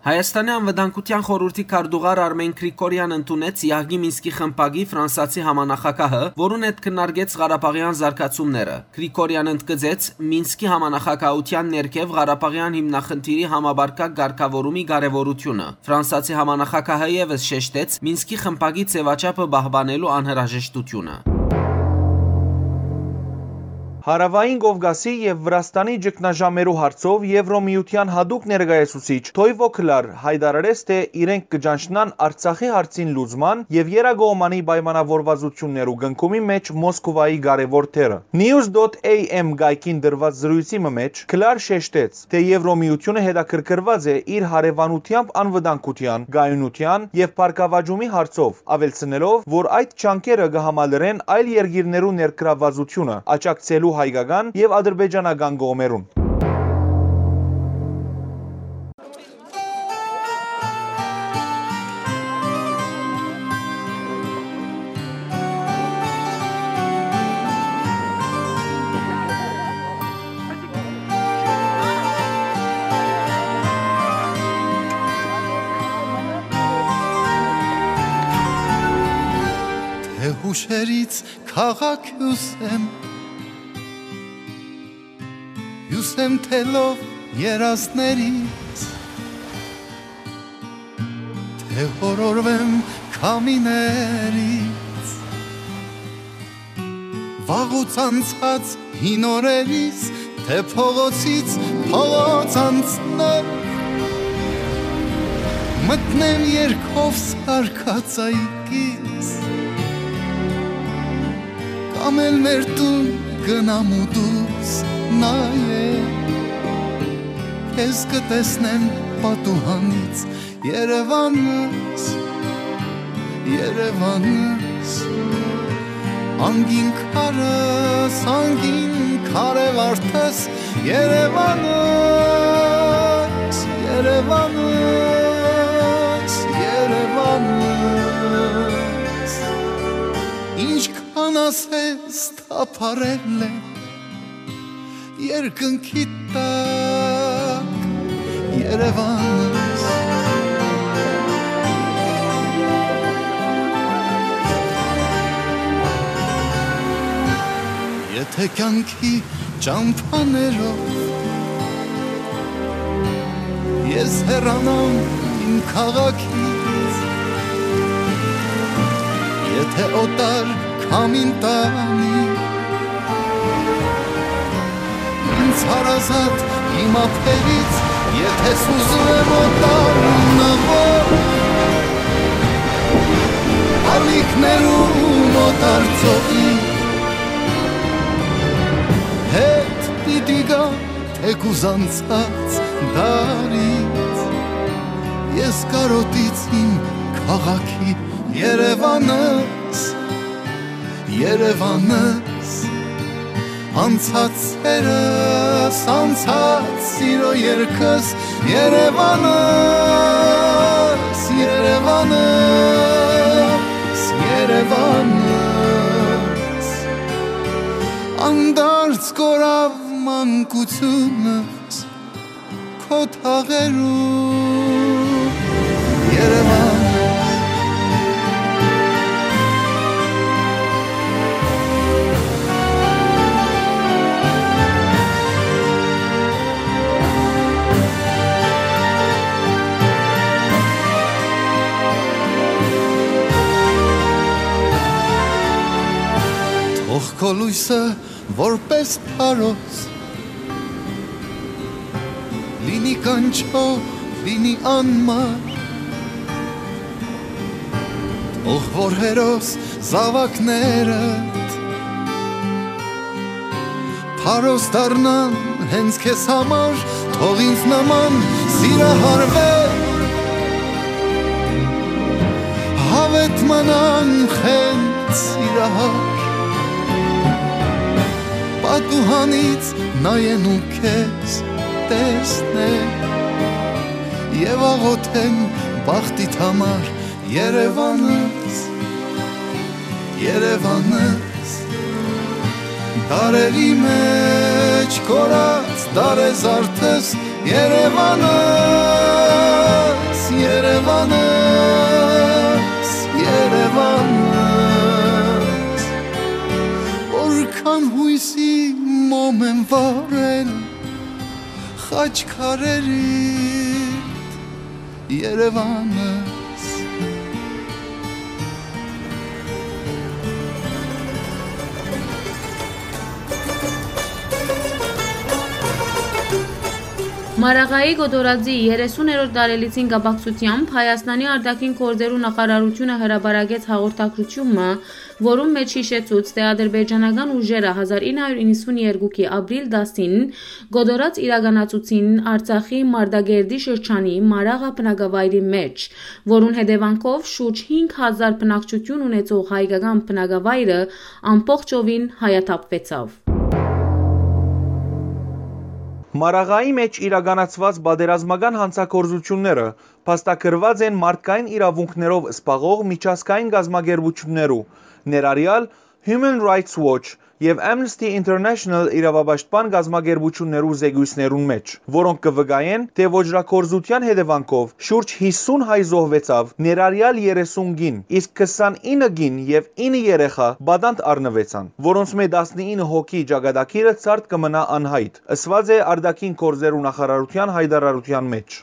Հայաստանի Անվտանգութեան խորհուրդի քարտուղար Արմեն Գրիգորեան ընդունեց յահկի Մինսկի խմբակի ֆրանսացի համանախագահը, որուն հետ քննարկեց ղարաբաղեան զարգացումները։ Գրիգորեան ընդգծեց Մինսկի համանախագահութեան ներքեւ ղարաբաղեան հիմնախնդիրի համապարփակ կարգաւորումի կարեւորութիւնը։ Ֆրանսացի համանախագահը եւս շեշտեց Մինսկի խմբակի ձեւաչափը պահպանելու անհրաժեշտութիւնը։ Հարաւային Կովկասի եւ Վրաստանի ճգնաժամերու հարցով Եվրոմիութեան յատուկ ներկայացուցիչ Թոյվո Քլար յայտարարեց, թէ իրենք կը ճանչնան Արցախի հարցին լուծման եւ եռակողմանի պայմանաւորուածութիւններու կնքումի մէջ Մոսկուայի կարեւոր դերը։ News dot A M կայքին տրուած զրոյցի մը մէջ Քլար շեշտեց, թէ Եվրոմիութիւնը հետաքրքրուած է իր հարեւանութեամբ անվտանգութեան, կայունութեան եւ բարգաւաճումի հարցով, աւելցնելով, որ այդ ջանքերը կը համալրեն այլ երկիրներու ներգրաւվածութիւնը, աջակցելու հայկական եւ ադրբեջանական կողմերուն։ Թե հուշերից քաղաք հիւսեմ, հիւսեմ թելով երազներից, թե հորորվեմ քամիներից, վաղուց անցած հին օրերից, թե փողոցից փողոց անցնեմ, մտնեմ երկով սարկած այգից, կամ էլ մեր տուն գնամ ու դուրս նայեմ, քեզ կտեսնեմ պատուհանից, Երևանս, Երևանս, անգին քարս, անգին քարե վարդս, Երևանս, Երևանս, Երևանս, ինչքան ասես թափառել է երկնքի տակ Երևանս։ Եթե կյանքի ճամփաներով ես հեռանամ իմ քաղաքից, եթե օտար քամին տանի ինձ հարազատ իմ ափերից, եթե սուզում եմ օտար նավով, Անցած դարից ես կարոտից իմ քաղաքի Երևանս, Երևանս, անցած սերս, անցած սիրո երգս, Երևանս, Երևանս, Երևանս, անդարձ կորավ մանկությունս քո թաղերու Երևան։ Թող քո լոյսը որպես փարոս լինի կանչող, լինի անմար, թող որ հերոս զաւակներդ փարոս դառնան հենց քեզ համար, թող ինձ նման սիրահարվեր Հավետ մնան խենթ սիրահար, պատուհանից նայեն ու քեզ տեսնեն, եւ աղոթեն բախտիդ համար, Երևանս, Երևանս, դարերի մեջ կորած դարեզարդս, Երևանս, Երևանս, Երևանս, որքան յոյսի մոմ եմ վառել խաչքարերիդ, Երևանս։ Մարաղայի Կոտորածի երեսուներորդ տարելիցին կապակցությամբ Հայաստանի արտաքին գործերու նախարարութիւնը հրապարակեց հաղորդագրութիւն մը, որուն մէջ յիշեցուց, թէ ադրբեջանական ուժերը հազար ինը հարիւր իննսունեերկուքի ապրիլ տասին Կոտորած իրականացուցին Արցախի Մարտակերտի շրջանի Մարաղա բնակավայրի մէջ, որուն հետեւանքով շուրջ հինգ հազար բնակչութիւն ունեցող հայկական բնակավայրը ամբողջովին հայաթափուեցաւ։ Մարաղայի մէջ իրականացուած պատերազմական հանցագործութիւնները փաստագրուած են մարդկային իրաւունքներով զբաղող միջազգային կազմակերպութիւններու, ներառեալ Human Rights Watch եւ Amnesty International իրաւապաշտպան կազմակերպութիւններու զեկոյցներուն մէջ, որոնք կը վկայեն, թէ ոճրագործութեան հետեւանքով շուրջ յիսուն հայ զոհուեցաւ, ներառեալ երեսուն կին, իսկ քսանինը կին եւ ինը երեխայ պատանդ առնուեցան, որոնցմէ տասնինը հոգի ճակատագիրը ցարդ կը մնայ անյայտ, ըսուած է արտաքին գործերու նախարարութեան յայտարարութեան մէջ։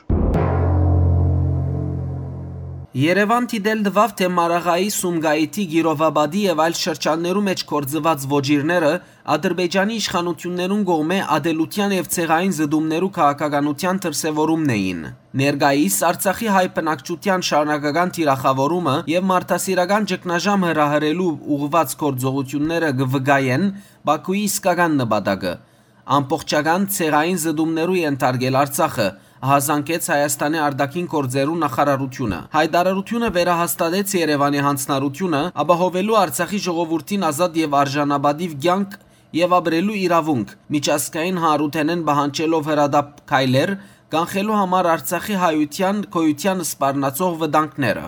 Երեւան դիտել տուաւ, թէ Մարաղայի, Սումգայիթի, Կիրովապատի եւ այլ շրջաններու մէջ գործուած ոճիրները Ադրբեջանի իշխանութիւններուն կողմէ ատելութեան եւ ցեղային զտումներու քաղաքականութեան դրսեւորումն էին։ Ներկայիս Արցախի հայ բնակչութեան շարունակական թիրախաւորումը եւ մարդասիրական ճգնաժամ հրահրելու ուղղուած գործողութիւնները կը վկայեն Բաքուի իսկական նպատակը՝ ամբողջական ցեղային զտումներու ենթարկել Արցախը, ահազանգեց Հայաստանի արտաքին գործերու նախարարութիւնը։ Յայտարարութիւնը վերահաստատեց Երեւանի յանձնառութիւնը՝ ապահովելու Արցախի ժողովուրդին ազատ եւ արժանապատիւ կեանք եւ ապրելու իրաւունք, միջազգային հանրութենէն պահանջելով հրատապ քայլեր, կանխելու համար Արցախի հայութեան գոյութեան սպառնացող վտանգները։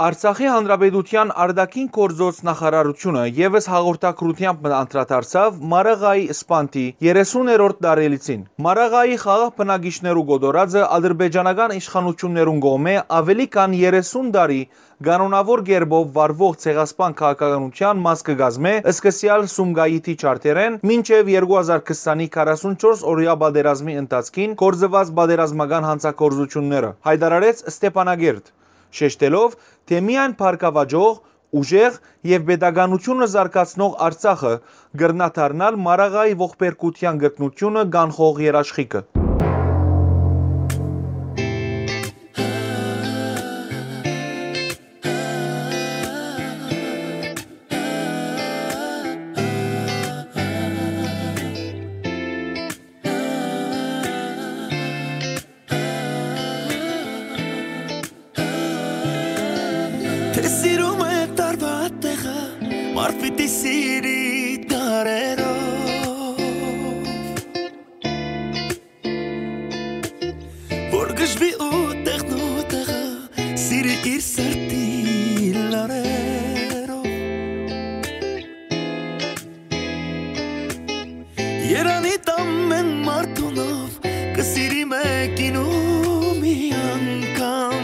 Արցախի Հանրապետութեան արտաքին գործոց նախարարութիւնը եւս հաղորդագրութեամբ մը անդրադարձաւ Մարաղայի սպանդի երեսուներորդ տարելիցին։ Մարաղայի խաղաղ բնակիչներու կոտորածը ադրբեջանական իշխանութիւններուն կողմէ աւելի քան երեսուն տարի կանոնաւոր կերպով վարուող ցեղասպան քաղաքականութեան մաս կը կազմէ, սկսեալ Սումգայիթի ջարդերէն մինչեւ երկու հազար քսանի քառասունչորս օրեայ պատերազմի ընթացքին գործուած պատերազմական հանցագործութիւնները, յայտարարեց Ստեփանակերտ, շեշտելով, թէ միայն բարգաւաճող, ուժեղ եւ պետականութիւնը զարգացնող Արցախը կրնայ դառնալ Մարաղայի ողբերգութեան կրկնութիւնը կանխող երաշխիքը։ Մարդ պիտի սիրի դարերով, որ գժվի ու տեղն ու տեղը, սիրի իր սրտի լարերով։ Երանի տամեն մարդունով, կը սիրի մեկին ու մի անգամ։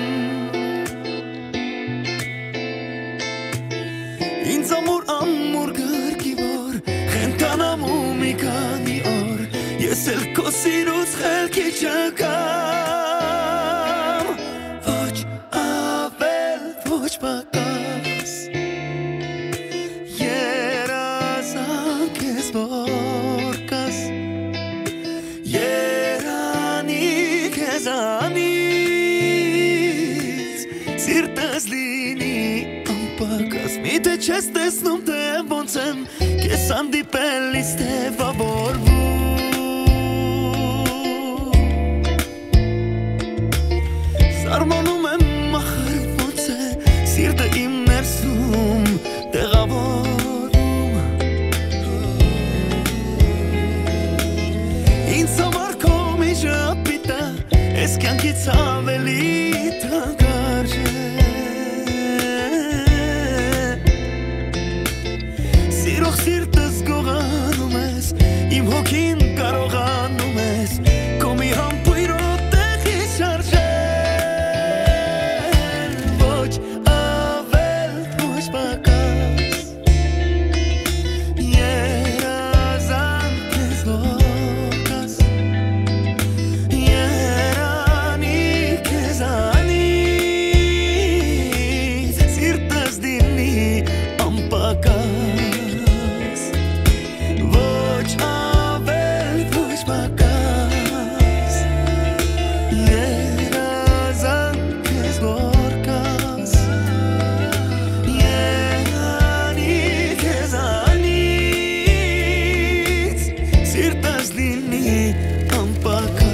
Ինձ ամուր, ամուր գրկի որ, խենթանամ ու մի քանի օր, ես էլ քո սիրուց խելքի չգամ։ Ոչ ավել, ոչ պակաս, երազանք ես որ կաս, երանի քեզանից, սիրտս լինի անպակաս, միթէ չես տեսնում, թե ոնց եմ քեզ հանդիպելիս տեւաւորվում։ Սարմանում եմ, ախր ոնց է սիրտը իմ ներսում տեղաւորվում։ Ինձ համար քո միջապիտը, ես կյանքից ավելի թանկարժ է։ Սիրող սիրտս գողանում ես, իմ հոգին կարողանում ես, քո մի համբույրով տեղի շարժել։ Ոչ ավել, ոչ պակաս, երազանք ես որ կաս, երանի քեզանից, սիրտս դիմի անպակաս, ոչ ավել, ոչ պակաս, երազանք ես որ կաս, երանի քեզանից, սիրտս լինի անպակաս։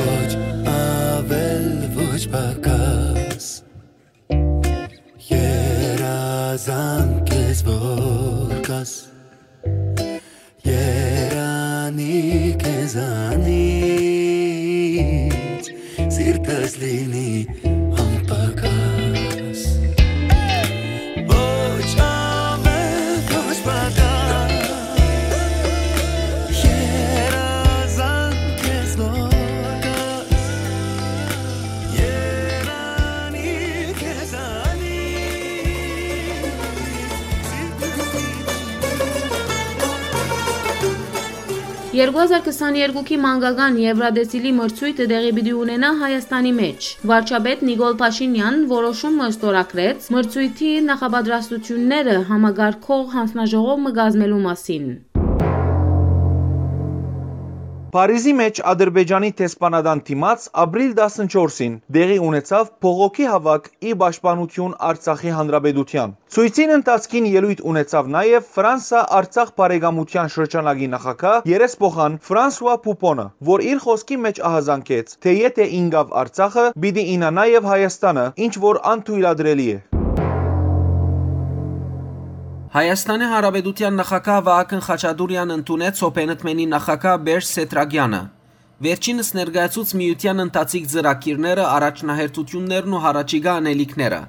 Ոչ ավել, ոչ պակաս, երազանք ես որ կաս, երանի քեզանից, սիրտս լինի անպակաս։ Ոչ ավել, ոչ պակաս, երազանք ես որ կաս, երանի քեզանից, սիրտս Երկու հազար քսաներկուքի մանկական Եվրատեսիլի մրցոյթը տեղի պիտի ունենայ Հայաստանի մէջ։ Վարչապետ Նիկոլ Փաշինեան որոշում մը ստորագրեց մրցոյթի նախապատրաստութիւնները համակարգող յանձնաժողով մը կազմելու մասին։ Փարիզի մէջ Ադրբեջանի դեսպանատան դիմաց ապրիլ տասնչորսին տեղի ունեցաւ բողոքի հաւաք ի պաշտպանութիւն Արցախի Հանրապետութեան։ Ցոյցին ընթացքին ելոյթ ունեցաւ նաեւ Ֆրանսա-Արցախ բարեկամութեան շրջանակի նախագահ երեսփոխան Ֆրանսուա Պուպոնը, որ իր խօսքի մէջ ահազանգեց, թէ եթէ ինկաւ Արցախը, պիտի ինայ նաեւ Հայաստանը, ինչ որ անթոյլատրելի է։ Հայաստանի Հանրապետութեան նախագահ Վահագն Խաչատուրեան ընդունեց Հոփենըդմենի նախագահ Պերճ Սեդրակեանը։ Վերջինս ներկայացուց միութեան ընթացիկ ծրագիրները, առաջնահերթութիւններն ու յառաջիկայ անելիքները։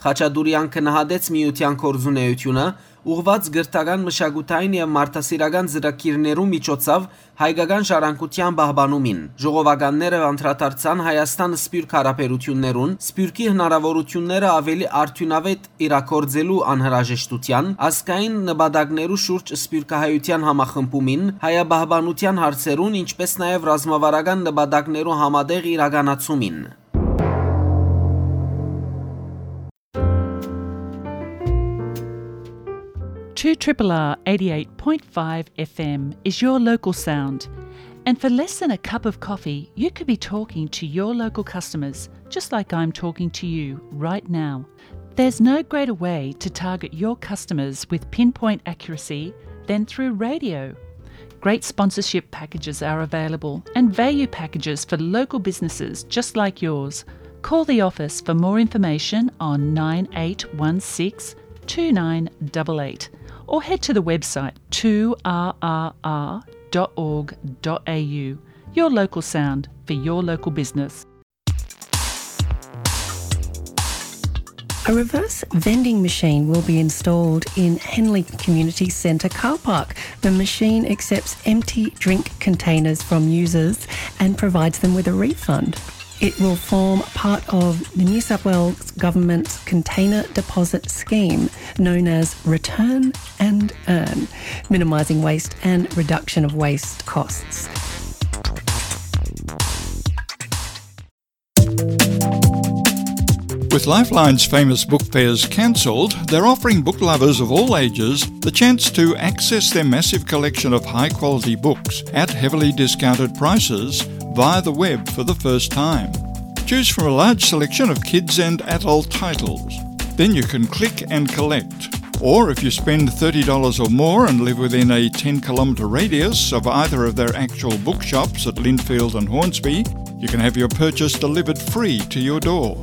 Խաչատուրեան գնահատեց միութեան գործունեութիւնը, ուղղուած կրթական, մշակութային եւ մարդասիրական ծրագիրներու միջոցով հայկական ժառանգութեան պահպանումին։ Ժողովականները անդրադարձան Հայաստան-Սփիւռք հարաբերութիւններուն, Սփիւռքի հնարաւորութիւնները աւելի արդիւնաւէտ իրագործելու անհրաժեշտութեան, ազգային նպատակներու շուրջ սփիւռքահայութեան համախմբումին, հայապահպանութեան հարցերուն, ինչպէս նաեւ ռազմավարական նպատակներու համատեղ իրականացումին։ Two triple R eighty-eight point five F M is your local sound. And for less than a cup of coffee, you could be talking to your local customers, just like I'm talking to you right now. There's no greater way to target your customers with pinpoint accuracy than through radio. Great sponsorship packages are available and value packages for local businesses just like yours. Call the office for more information on nine eight one six two nine eight eight or head to the website two R R R dot org dot A U. Your local sound for your local business. A reverse vending machine will be installed in Henley Community Centre car park. The machine accepts empty drink containers from users and provides them with a refund. It will form part of the New South Wales Government's Container Deposit Scheme, known as Return and Earn, minimising waste and reduction of waste costs. With Lifeline's famous book fairs cancelled, they're offering book lovers of all ages the chance to access their massive collection of high-quality books at heavily discounted prices via the web for the first time. Choose from a large selection of kids and adult titles. Then you can click and collect. Or if you spend thirty dollars or more and live within a ten kilometre radius of either of their actual bookshops at Lindfield and Hornsby, you can have your purchase delivered free to your door.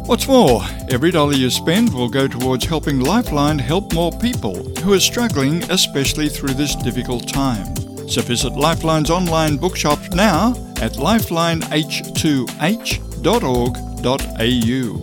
What's more, every dollar you spend will go towards helping Lifeline help more people who are struggling, especially through this difficult time. So visit Lifeline's online bookshop now at lifeline h two h dot org dot a u.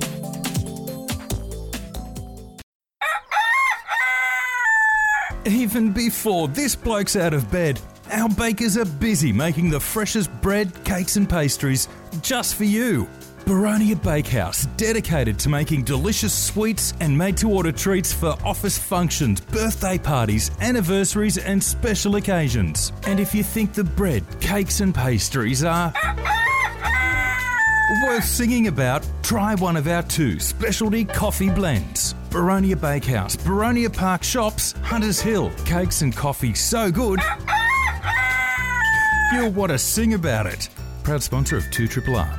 Even before this bloke's out of bed, our bakers are busy making the freshest bread, cakes, and pastries just for you. Baronia Bakehouse, dedicated to making delicious sweets and made to order treats for office functions, birthday parties, anniversaries, and special occasions. And if you think the bread, cakes, and pastries are worth singing about, try one of our two specialty coffee blends. Baronia Bakehouse, Baronia Park Shops, Hunters Hill. Cakes and coffee so good, you'll want to sing about it. Proud sponsor of two triple R.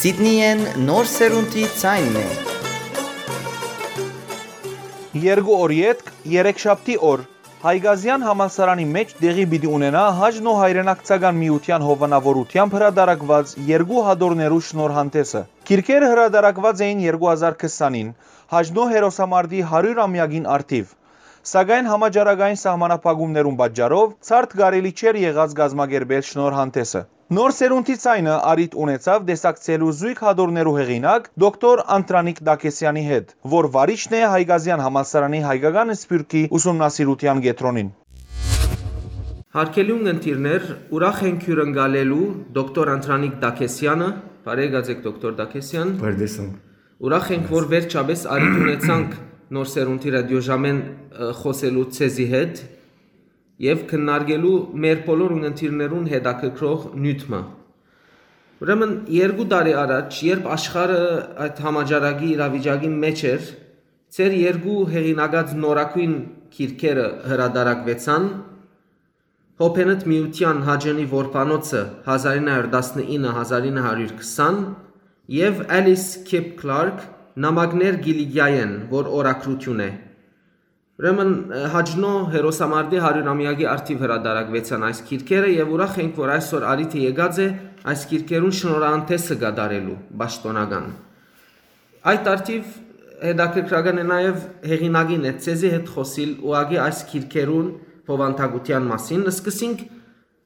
Սիդնիեն նոր սերունդի ցայնն է։ Երկու օր ետք, երեքշաբթի օր, Հայկազեան համալսարանի մէջ տեղի պիտի ունենայ Հայ Նոր Հայրենակցական Միութեան հովանաւորութեամբ հրատարակուած երկու հատորներու շնորհանդէսը։ Գիրքերը հրատարակուած էին երկու հազար քսանին, Հայ Նոր հերոսամարտի հարիւր ամեակին առթիւ։ Սակայն համաճարակային սահմանափակումներուն պատճառով ցարդ կարելի չէր եղած կազմակերպել շնորհանդէսը։ Նոր սերունդի ցայնը առիթ ունեցաւ տեսակցելու զոյգ հատորներու հեղինակ դոկտոր Անդրանիկ Տակեսեանի հետ, որ վարիչն է Հայկազեան համալսարանի հայկական սփիւռքի ուսումնասիրութեան կեդրոնին։ Հարգելի ունգընտիրներ, ուրախ ենք հիւրընկալելու դոկտոր Անդրանիկ Տակեսեանը։ Բարեկացեք, դոկտոր Տակեսեան։ Բարդեսան։ Ուրախ ենք, որ վերջապես առիթ ունեցանք Նոր սերունդի ռադիոժամեն, ը, խոսելու ձեզի հետ եւ քննարկելու մեր բոլոր ունգընտիրներուն հետաքրքրող նիւթ մը։ Ուրեմն, երկու տարի առաջ, երբ աշխարհը այդ համաճարակի իրավիճակի մէջ էր, ձեր երկու հեղինակած նորագոյն գիրքերը հրատարակուեցան, Հոբենտ միութեան Հաճընի որբանոցը հազար ինը հարյուր տասնինը, հազար ինը հարյուր քսան, եւ Alice Kip Clark, Նամակներ Կիլիկիայէն, որ օրագրութիւն է։ Ուրեմն, ը, Հայ Նոր հերոսամարտի հարիւր ամեակի առթիւ հրատարակուեցան այս գիրքերը եւ ուրախ ենք, որ այսօր առիթը եկած է այս գիրքերուն շնորհանդէսը կատարելու պաշտօնական։ Այդ առթիվ հետաքրքրական է նաեւ հեղինակին հետ, ձեզի հետ խոսիլ ուղղակի այս գիրքերուն բովանդակութեան մասին։ Սկսենք,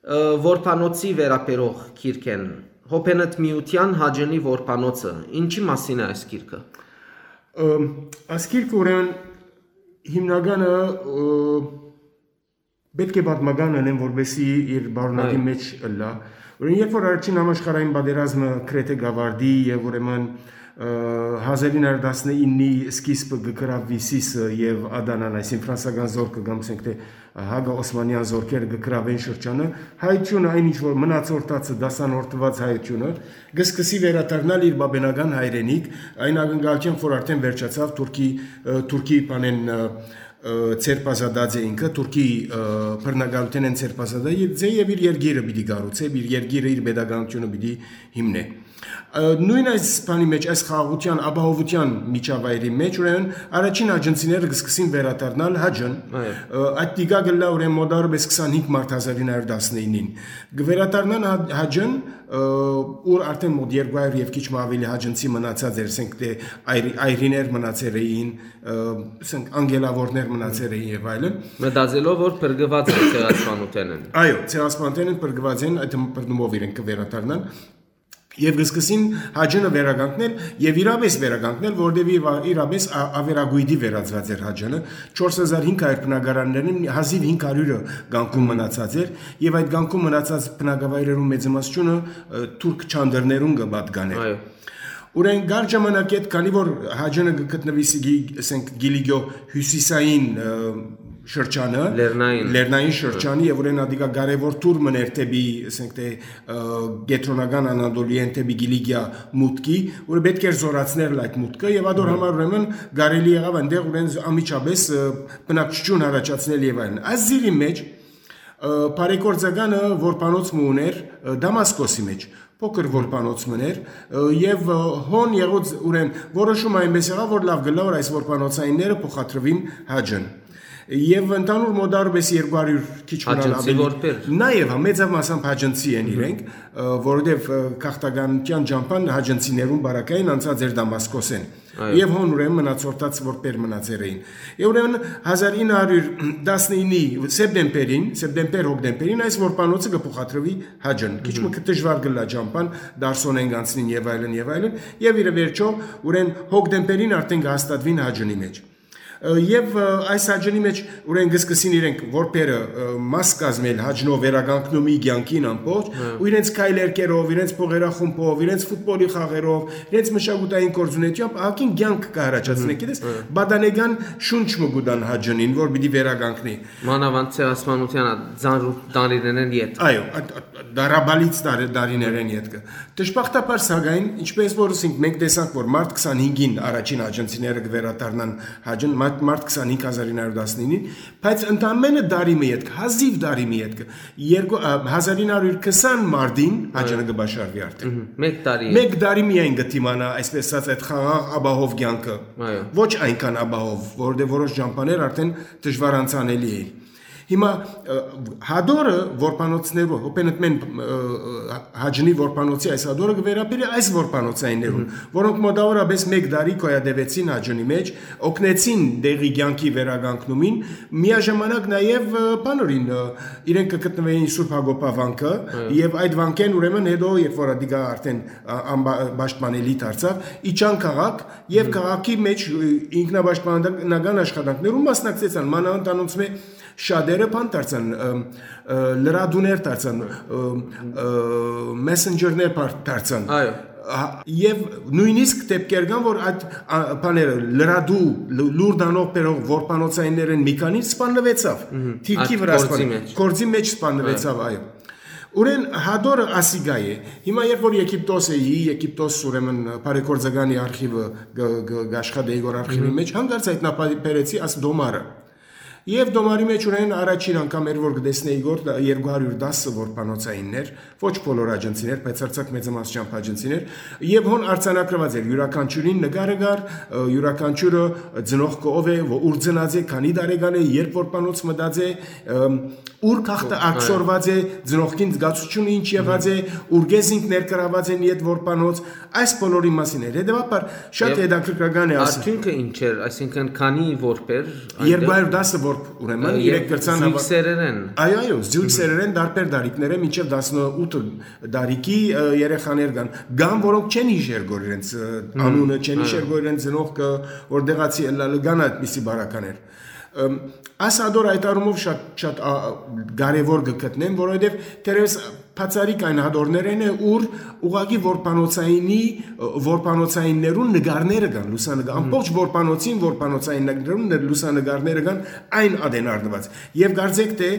ը, որբանոցի վերաբերող գիրքէն, Հոբենտ միութեան Հաճընի որբանոցը։ Ինչի՞ մասին է այս գիրքը։ Ը, Այս գիրքը, ուրեմն, հիմնականը, ը, պէտք է պատմական ընեմ, որպեսզի իր բարունակի Այո։ Մեջ ըլլայ։ Ուրեմն, երբ որ առաջին համաշխարհային պատերազմը գրեթէ գավարդի եւ, ուրեմն, ը, հազար ինը հարյուր տասնիննի սկիզբը կը գրաւի Սիսը եւ Ադանան, այսինքն ֆրանսական զորքը կամ, ասենք թէ, հակաօսմանեան զորքերը կը գրավեն շրջանը, հայությունը, այն ինչ որ մնացորդացը, դասանորդուած հայությունը, կը սկսի վերադառնալ իր բաբենական հայրենիք, այն ակնկալությամբ, որ արդեն վերջացաւ Թուրքի, ը, Թուրքի բանեն, ը, ը, ձերբազատած է ինքը, Թուրքի, ը, բռնակալութենէն ձերբազատած է եւ իր երկիրը պիտի կառուցէ, իր երկիրը, իր պետականությունը պիտի հիմնէ։ Ը, նոյն այս բանի մեջ, այս խաղաղութեան, ապահովութեան միջավայրի մեջ, ուրեմն առաջին հաճընցիները կը սկսին վերադառնալ Հաճն։ Այո։ Ը, այդ տիկա կլա, ուրեմն, մոտարապես քսանհինգ մարտ հազար ինը հարյուր տասնինին։ Կը վերադառնան Հա-, Հաճն, ը, ուր արդեն մոտ երկու հարյուր եւ քիչ մը աւելի հաճընցի մնացած էր, ասենք թէ այր-, այրիներ մնացեր էին, ը, ասենք անգելավորներ մնացեր էին եւ այլն։ Մտածելով, որ փրկուած են ցեղասպանութենէն։ Այո, ցեղասպանութենէն փրկուած են, այդ բռնումով իրենք կը վերադառնան։ Եւ կը սկսին Հաճնը վերականգնել եւ իրապէս վերականգնել, որտեւ իր-, իրապէս ա-, ավերագոյտի վերածուած էր Հաճնը։ Չորս հազար հինգ հարյուր բնակարաններուն հազիւ հինգ հարիւրը կանգուն մնացած էր եւ այդ կանգուն մնացած բնակավայրերուն մեծամասնությունը, ը, թուրք չանդրներուն կը պատկանէր։ Այո։ Ուրեմն կար ժամանակ հետ, քանի որ Հաճնը կը գտնուի Սիգի-, ասենք, Կիլիկիո հիւսիսային, ը, շրջանը, Լեռնային։ Լեռնային շրջանի, եւ ուրեմն ադիկա կարեւոր թուր մըն էր դէպի, ասենք թէ, ը, կեդրոնական Անատոլիեն դէպի Կիլիկիա մուտքի, որ պէտք էր զօրացնել այդ մուտքը, եւ ադոր համար ուրեմն կարելի եղաւ այնտեղ ուրեմն անմիջապէս, ը, բնակչութիւն առաջացնել եւ այլն։ Այս զիրի մեջ, ը, բարեգործականը որբանոց մը ուներ, ը, Դամասկոսի մեջ, փոքր որբանոց մըն էր, ը, եւ, ը, հոն եղած ուրեմն որոշում այնպես եղաւ, որ լաւ կլա, որ այս որբանոցայինները փոխադրուին Հաճն։ Եւ ընդհանուր մոտարպես երկու հարիւր քիչ մնալ Հաճնցի ավելի որբեր։ Նաեւ, հա, մեծամասամբ հաճնցի են իրենք, ը, որովհետեւ, ը, գաղթականութեան ճամբան հաճնցիներուն բարակային անցած էր Դամասկոսէն։ Այո։ Եւ հոն ուրեմն մնացորդաց որբեր մնացեր էին։ Եւ ուրեմն հազար ինը հարիւր տասնիննի սեպտեմբերին, սեպտեմբեր-հոկտեմբերին այս որբանոցը կը փոխադրուի Հաճն։ Քիչ մը կը դժուար կլա ճամբան, Դարսոնեն կանցնին եւ այլն, եւ այլն, եւ իրը վերջո ուրեմն հոկտեմբերին արդեն կը հաստատուին Հաճնի մեջ։ Ը, եւ, ը, այս Հաճնի մեջ ուրեմն կը սկսին իրենք որբերը, ը, մաս կազմել Հաճնով վերականգնումի կեանքին ամբողջ, Հա։ Ու իրենց քայլերկերով, իրենց փողերախումբով, իրենց ֆուտբոլի խաղերով, իրենց մշակութային գործունեությամբ ահագին կեանք կը առաջացնեն, Հմ, գիտես, հա։ Պատանեկան շունչ մը կու տան Հաճնին, որ պիտի վերականգնի։ Մանավանդ ցեղասպանության ա-, ծանրուկ տարիներէն յետ։ Այո, այդ, այդ դարաբալից տարի-, տարիներէն յետքը։ Դժբախտաբար, սակայն, ինչպես որ ասենք, մենք տեսանք, որ մարտ քսանհինգին առաջին հաճնցիները կը վերադառնան Հաճն, մարտ, մարտ քսանհինգ հազար ինը հարիւր տասնինին, բայց ընդամենը տարի մը ետք, հազիվ տարի մը ետքը, երկու, ա, հազար ինը հարիւր քսան մարտին Հաճնը Այո։ Կը բաշխարուի արդեն։ Մհմ, մեկ տարի Մեկ տարի միայն կը դիմանայ, այսպես ասած, այդ խաղաղ ապահով կեանքը։ Այո։ Ոչ այնքան ապահով, որովհետեւ որոշ ճամբաներ արդեն դժուար անցանելի էին։ Հիմա, ը, հադորը որբանոցներու, հոպենտմեն, ը, ը, Հաճնի որբանոցի այս հադորը կը վերաբերի այս որբանոցայիններուն, Մհմ։ Որոնք մոտավորապես մեկ տարի գոյատևեցին Հաճնի մեջ, օգնեցին դեղի կեանքի վերականգնումին, միաժամանակ նաեւ, ը, բանորին, ը, իրենք կը գտնվեին Սուրբ Հակոբա վանքը, Այո։ Եւ այդ վանքէն ուրեմն հետո, երբ որ ադիկա արդեն, ա, անբա-, պաշտպանելի դարձաւ, իջան քաղաք եւ Մհմ։ Քաղաքի մեջ, ը, ինքնապաշտպանական աշխատանքներուն մասնակցեցան, մանավանդ անոնցմէ շատերը բան դարձան, ը, ը, լրատուներ դարձան, ը, ը, մեսենջերներ բար-, դարձան։ Այո։ Հա, եւ նոյնիսկ դեպքեր կան, որ այդ, ա, բաները, լրատու, լու-, լուր տանող բերող որբանոցայիններէն մի քանին սպաննվեցաւ։ Մհմ։ Թիրքի Այդ վրա գործի սպան-, մեջ։ Գործի մեջ սպաննվեցաւ, այո։ Ուրեն հադորը ասիկա է։ Հիմա երբ որ Եգիպտոս էի, Եգիպտոս ուրեմն բարեգործականի արխիվը գ-, գ-, գաշխատեի որ արխիվի Մհմ։ Մեջ, հանկարծ հայտնաբերեցի աս դոմարը։ Եվ դոմարի մեջ ուրեմն առաջին անգամ էր, որ կտեսնեի գոր դ-, երկու հարյուր տասը որբանոցայիններ, ոչ բոլոր աջնցիներ, բայց արձակ մեծամասնությամբ աջնցիներ, եւ հոն արձանագրված էր, յուրաքանչյուրին նկարը կար, ը, յուրաքանչյուրը ծնողքը ով է, ո-, ուր ծնած է, քանի տարեկան է, երբ որբանոց մտած է, ըմ, ուր քաղտը Այո։ Ակսորված է, ծնողքին զգացությունը ինչ եղած է, ուր գեզինք ներկրաված են յետ որբանոց, այս բոլորի մասին էր։ Հետևաբար շատ Եվ հետաքրքրական է ասել։ Արդյունքը ինչ էր, այսինքն քանի որբեր այնտեղ երկու հարյուր տասը Ուրեմն իրենք կրցան զույգ սերերեն։ Այո, այո, զույգ սերերեն դարբեր դարիքներէ մինչեւ տասնութ տարիքի երեխաներ կան, կան, որոնք չեն յիշեր գոր իրենց անունը, չեն յիշեր գոր իրենց ծնողքը, որ դեղացի ըլլալը, կան այդպիսի բարականեր։ Այս հատոր այդ առումով շատ, շատ կարևոր կը գտնեմ, որովհետեւ թերևս բացառիկ այն հատորներէն է, ուր ուղղակի որբանոցայինի, որբանոցայիններուն նկարները կան, լուսանկար, ամբողջ որբանոցին որբանոցայիններուն լուսանկարները կան այն ատեն առնուած։ Եւ կարծեք թէ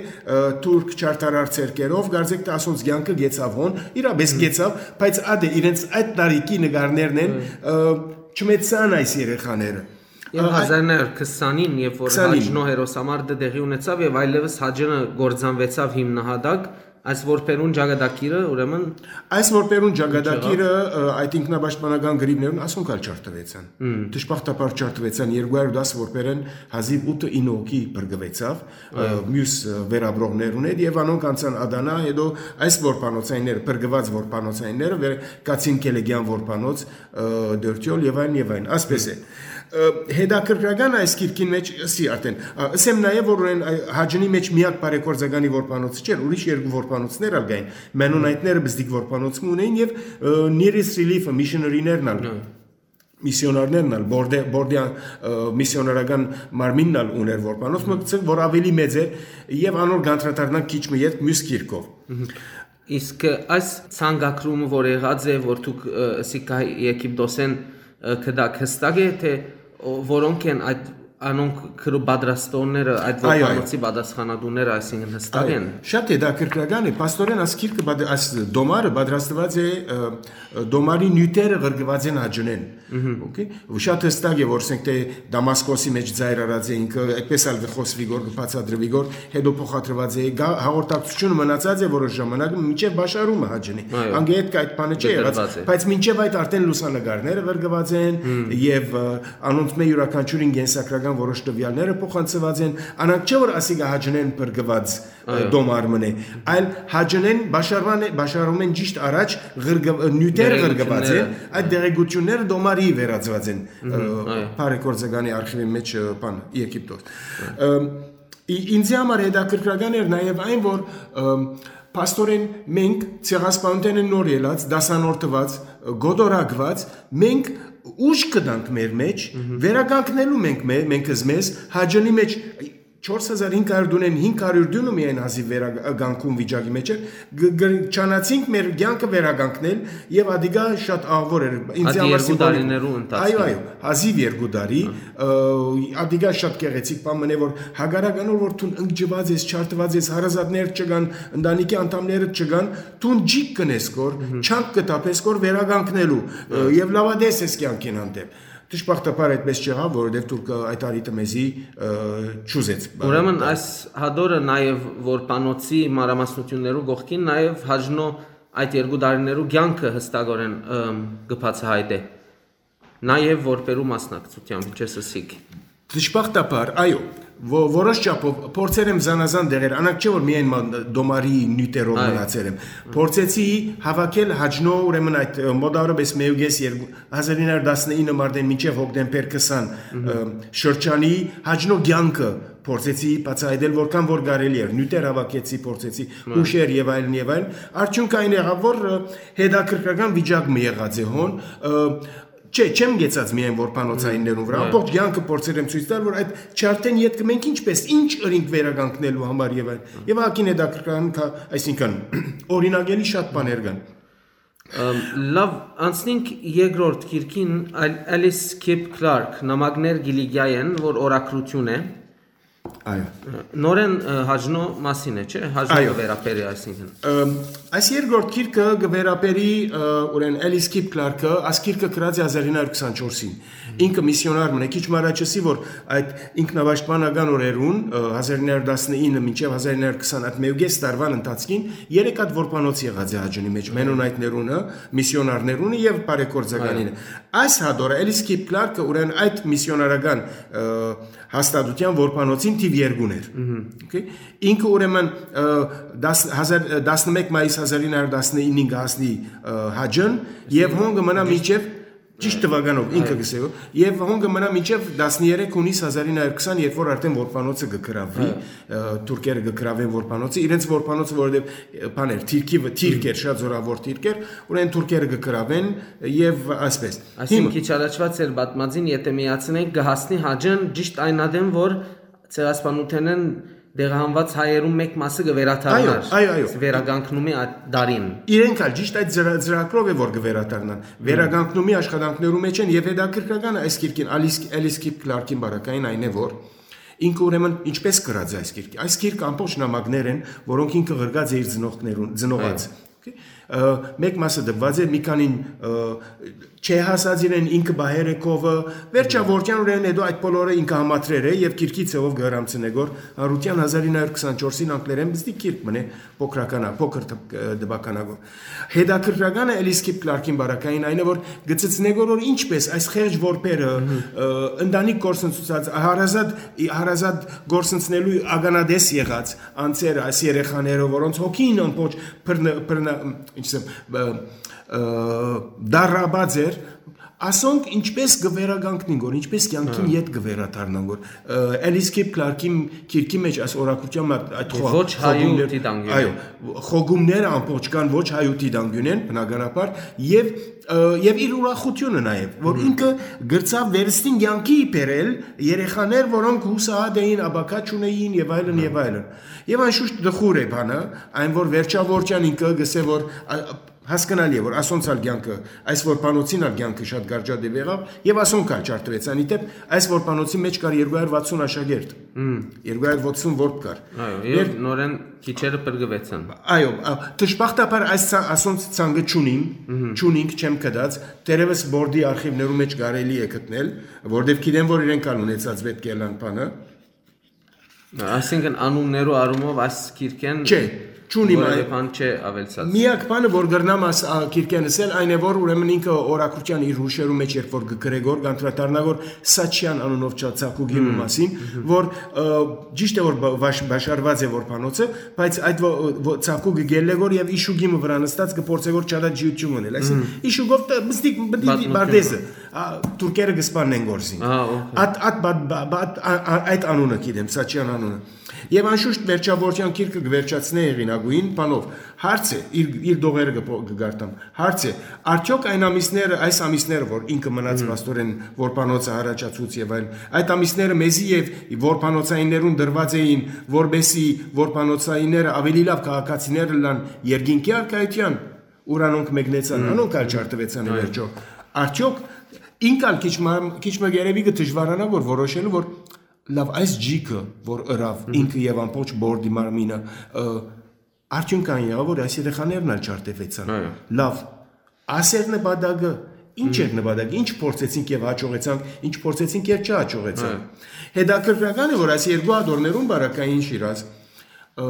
թուրք չարդարար ցերկերով, կարծեք թէ ասոնց կյանքը գեցաւ հոն, իրապէս գեցաւ, բայց ատե իրենց այդ տարիքի նկարներն են, չմեծցան այս երեխաները։ Եւ հազար նոյ հարիւր քսանին, երբ որ Հաճնո հերոսամարտը տեղի ունեցաւ եւ այլեւս Հաճնը կործանուեցաւ հիմնահատակ, այս որբերուն ճակատագիրը, ուրեմն այս որբերուն ճակատագիրը, այդ ինքնապաշտպանական գրիվներուն ասոնք ալ չարդուեցան։ Դժբախտաբար չարդուեցան, երկու հարյուր տաս որբերեն հազիւ ութը ինը հոգի փրկուեցաւ, մյուս վերապրողներուն հետ, եւ անոնք անցան Ադանա, հետո այս որբանոցայինները, փրկուած որբանոցայինները, կացին Քելեգեան որբանոց, Դորթիոլ եւ այլն, եւ այլն, ասպէս է։ Հետաքրքրական այս գիրքին մեջ, ըսի արդեն, ըսեմ նաեւ, որ Հաճնի մեջ միակ բարեգործականի որբանոցը չէր, ուրիշ երկու որբանոցներ ալ կային, մենոնայտները բզդիկ որբանոց մը ունեին, եւ Nearest Relief-ը, միսիոներիներն ալ, միսիոնարներն ալ, Բորդե-, Բորդեան միսիոնարական մարմինն ալ ուներ որբանոց մը, որ ավելի մեծ է, եւ անոր կանդրադառնանք քիչ մը ետք մյուս գիրքով։ Իսկ այս ցանկագրումը, որ եղած է, որ դուք ըսիք Եգիպտոսէն գտաք, հստակ է թէ որոնք են այդ, անոնք գրու պատրաստողները, այդ որբանոցի պատասխանատուները, այսինքն հստակ են։ Շատ հետաքրքրական է, փաստորեն, այս գիրքը, այս դոմարը պատրաստուած է, դոմարի նիւթերը ղրկուած են Հաճնեն։ Okay։ Ու շատ հստակ է, որ ասենք թէ Դամասկոսի մեջ ծայր առած է ինքը, այդպես ալ կը խոսուի գոր, կը բացատրուի գոր, հետո փոխադրուած է, հաղորդակցությունը մնացած է որոշ ժամանակ, մինչեւ Բաշարումը Հաճնի։ Անգետ կայ այդ բանը չի եղած, բայց մինչեւ այդ արդեն լուսանկարները ղրկուած են, եւ անոնց մէ իւրաքանչիւրին կենսագրական որոշ տվեալները փոխանցուած են, անանք չէ որ ասիկա Հաճնեն փրկուած դոմար մնե, այլ Հաճնեն Բաշարվան է, Բաշարում են ճիշտ առաջ նիւթեր ղրկուած են, այդ դեղեկությունները դոմարի վերածուած են բարեգործականի արխիվի մեջ, բան, Եգիպտոս։ Ինձի համար հետաքրքրական էր նաեւ այն, որ փաստորեն մենք Ցեղասպանութենէն նոր ելած, դասանորդուած, գոտորակուած, մենք ուժ կտանք մեր մեջ, վերականգնելու մենք, մենք զմեզ Հաճնի մեջ չորս հազար հինգ հարիւր դունեն հինգ հարիւր դունը միայն հազիւ վերականգուն վիճակի մեջ էր, չանացինք մեր կյանքը վերականգնել, եւ ադիկա շատ աղվոր էր ինձ համար, երկու տարիներու ընթացքին։ Այո, այո, հազիւ երկու տարի, ադիկա շատ գեղեցիկ բան մնե, որ հակառակ անոր որ դուն ընկճուած ես, չարդուած ես, հարազատներ չկան, ընտանիքի անդամներդ չկան, դուն ջիկ կնես կոր, չանք կտապես կոր վերականգնելու, եւ լաւատես ես կյանքին հանդեպ։ Դժբախտաբար այդպես չեղաւ, որովհետեւ Թուրքը այդ առիթը մեզի չուզեց։ Ուրեմն այս հատորը նաեւ որբանոցի մանրամասնություններու կողքին նաեւ Հաճնո այդ երկու տարիներու կյանքը հստակորեն կը բացահայտէ, նաեւ որբերու մասնակցությամբ, ինչպես ըսիք։ Դժբախտաբար, այո, որոշ չափով փորձեր եմ զանազան դեղեր, անանք չէ որ միայն դոմարի նիւթերով մնացեր եմ։ Փորձեցի հավաքել Հաճնո, ուրեմն այդ մոտավորապես մէկ ու կես, երկու, հազար ինը հարիւր տասնինը մարտէն մինչեւ հոկտեմբեր քսան շրջանի Հաճնո կյանքը փորձեցի բացահայտել, որքան որ կարելի էր, նիւթեր հավաքեցի, փորձեցի հուշեր եւ այլն, եւ այլն։ Արդյունքը այն եղաւ, որ հետաքրքրական վիճակ մը եղած է հոն, չէ, չեմ գեցած միայն որբանոցայիններուն վրա, ամբողջ կյանքը փորձեր եմ ցոյց տալ, որ այդ չարդեն ետքը մենք ինչպես, ինչ ըրինք վերականգնելու համար եւ այլն։ Եւ ակին հետաքրքրական, այսինքն, օրինակելի շատ բաներ կան։ Լավ, անցնենք երկրորդ գիրքին, Ալիս Քիփ Քլարք, Նամակներ Կիլիկիայէն, որ օրագրութիւն է։ Այո։ Նորեն Հաճնո մասին է, չէ՞, Հաճնո կը վերաբերի, այսինքն։ Այս երկրորդ գիրքը կը վերաբերի, ուրեմն, Ալիս Քիփ Քլարքը, այս գիրքը գրած է հազար ինը հարիւր քսանչորսին։ Ինքը միսիոնար մնա, քիչ մը առաջ ըսի, որ այդ ինքնապաշտպանական օրերուն, հազար ինը հարիւր տասնինը մինչեւ հազար ինը հարիւր քսան, այդ մէկ ու կես տարուան ընթացքին երեք հատ որբանոց եղած է Հաճնի մեջ, մենոնայտներունը, միսիոնարներունը եւ բարեգործականինը։ Այս հատորը Ալիս Քիփ Քլարքը, ուրեմն, այդ միսիոնարական հաստատութեան որբանոցին թիվ երկուն էր։ Okay։ Ինքը, ուրեմն, տասնմէկ մայիս հազար ինը հարիւր տասնինին կը հասնի Հաճն եւ հոն կը մնայ մինչեւ Ճիշտ թուականով ինքը գսեւ։ Եւ հոն կը մնայ մինչեւ տասներեք յունիս հազար ինը հարյուր քսան, երբ որ արդեն որբանոցը կը գրաւի, թուրքերը կը գրաւեն որբանոցը, իրենց որբանոցը, որովհետեւ, բաներ, թիրքի, թիրք էր, շատ զորաւոր թիրք էր, ուրեմն թուրքերը կը գրաւեն եւ այսպես։ Այսինքն՝ քիչ առաջուած էր պատմածին, եթե միացնենք, կը հասնի Հաճն ճիշտ այն ատեն, որ ցեղասպանութենէն տեղահանուած հայերուն մէկ մասը կը վերադառնար։ Այո, այո, այո։ Վերականգնումի այդ դարին։ Իրենք ալ ճիշտ այդ ծրագրով է, որ կը վերադառնան։ Վերականգնումի աշխատանքներու մեջ են եւ հետաքրքրական այս գիրքին, Ալիս Էլիս Քիփ Քլարքին բարակային այն է, որ ինքը ուրեմն ինչպես գրած է այս գիրքը։ Այս գիրքը ամբողջ նամակներ են, որոնք ինքը գրած է իր ծնողներուն, ծնողած։ Okay։ Մեկ մասը դպված է, մի քանին չհասած իրեն, ինքը պահեր է քովը, վերջավորության ուրեմն հետո այդ բոլորը ինքը համադրեր է եւ գիրքի ձեւով կհրամցնե գոր հանրության հազար ինը հարյուր քսանչորսին անգլերեն բզդի գիրք մնե փոքրական, փոքր դպ-, դպականագոր։ Հետաքրքրականը Էլիս Քիփ Քլարքին բարակային այն է, որ գծցնե գոր, որ ինչպես այս խեղճ որբերը, ընտանիք գործընծուցած, հարազատ, հարազատ գործընծնելու ականատես եղած անձերը, այս երեխաները, որոնց հոգին ամբողջ բռնա-, բռնա-, ինչ ասեմ, ը, ը, դարաբած էր, ասոնք ինչպես կը վերականգնին գոր, ինչպես կյանքին ետ կը վերադառնան գոր։ Ը, Էլիս Քիփ Քլարքին գիրքի մեջ այս օրակրթության մը այդ Եւ խո-, ոչ հայու խոհգումներ-, դիտանկիւնէն։ Այո, խոհգումները ամբողջ կան ոչ հայու դիտանկիւնէն, բնականաբար, եւ, ը, եւ իր ուրախությունը նաեւ, որ ինքը գրցաւ վերստին կյանքի բերել երեխաներ, որոնք հուսահատ էին, աբակա չունեին եւ այլն, եւ այլն։ Եւ անշուշտ տխուր է բանը, այն որ վերջավորության ինքը գսե որ, ա, հասկնալի է, որ ասոնց ալ կյանքը, այս որբանոցին ալ կյանքը շատ կարճատեւ եղաւ, եւ ասոնք ալ չարդուեցան։ Ի դեպ, այս որբանոցի մեջ կար երկու հարյուր վաթսուն աշակերտ, երկու հարյուր վաթսուն որբ կար։ Այո, եւ Ներ- նորեն քիչերը փրկուեցան։ Այո, ա, դժբախտաբար այս ցա-, ասոնց ցանկը չունիմ, չունինք, չեմ գտած, թերեւս բորդի արխիվներու մեջ կարելի է գտնել, որտեւ գիտեմ, որ իրենք ալ ունեցած պետք է ըլլան բանը։ Այսինքն անուններու առումով այս գիրքեն Չէ, չունիմ որևէ այ-, բան չէ ավելցած։ Միակ բանը, որ կրնամ աս-, ա, գիրքեն ասել, այն է, որ ուրեմն ինքը օրակրթության իր հուշերու մեջ երբ որ կգրե գոր, կանդրադառնա գոր Սաչյան անունով չա-, ծագուկի մը մասին, որ, ը, ճիշտ է, որ բա-, բաշ-, բաշարված է որբանոցը, բայց այդ ո-, ո-, ծագուկը գելլե գոր եւ իշուկի մը վրան նստած կփորձե գոր չադա ջիություն մնել։ Այսինքն, իշուկով տ-, մստիկ, մտի Պատմություն։ Բարդեզը, ա, թուրքերը կսպաննեն գործին։ Ահա, օքեյ։ Այդ, այդ, բա-, բա-, բա-, այդ, ա-, ա-, այդ անունը գիտեմ, Սաչյան անունը։ Եվ անշուշտ վերջավորության գիրքը կվերջացնէ հեղինակուին բանով։ Հարց է, իր, իր դողերը կփո-, կգարտամ։ Հարց է, արդյոք այն ամիսները, այս ամիսները, որ ինքը մնաց Մհմ։ փաստորեն որբանոցը առաջացուց եւ այլն, այդ ամիսները մեզի եւ որբանոցայիններուն դրված էին, որպեսզի որբանոցայինները ավելի լավ քաղաքացիներ ըլլան երկինքի առկայության, ուր անոնք մեկնեցան, Մհմ։ անոնք ալ չարդուեցան ի Այո։ վերջո։ Արդյոք ինք ալ քիչ մա-, քիչ մը երևի կը դժվարանա, որ որոշելու, որ լավ, այս ջիքը, որ ըրավ, Մհմ։ ինքը եւ ամբողջ բորդի մարմինը, ը, արդյունք այն եղավ, որ այս երեխաներն ալ չարդեվեցան։ Այո։ Լավ, ասեր նպատակը, ինչ էր Մհմ։ նպատակը, ինչ փորձեցինք եւ հաջողեցանք, ինչ փորձեցինք եւ չհաջողեցանք։ Այո։ Հետաքրքրական է, որ այս երկու ադորներուն բարակային Շիրազ, ը,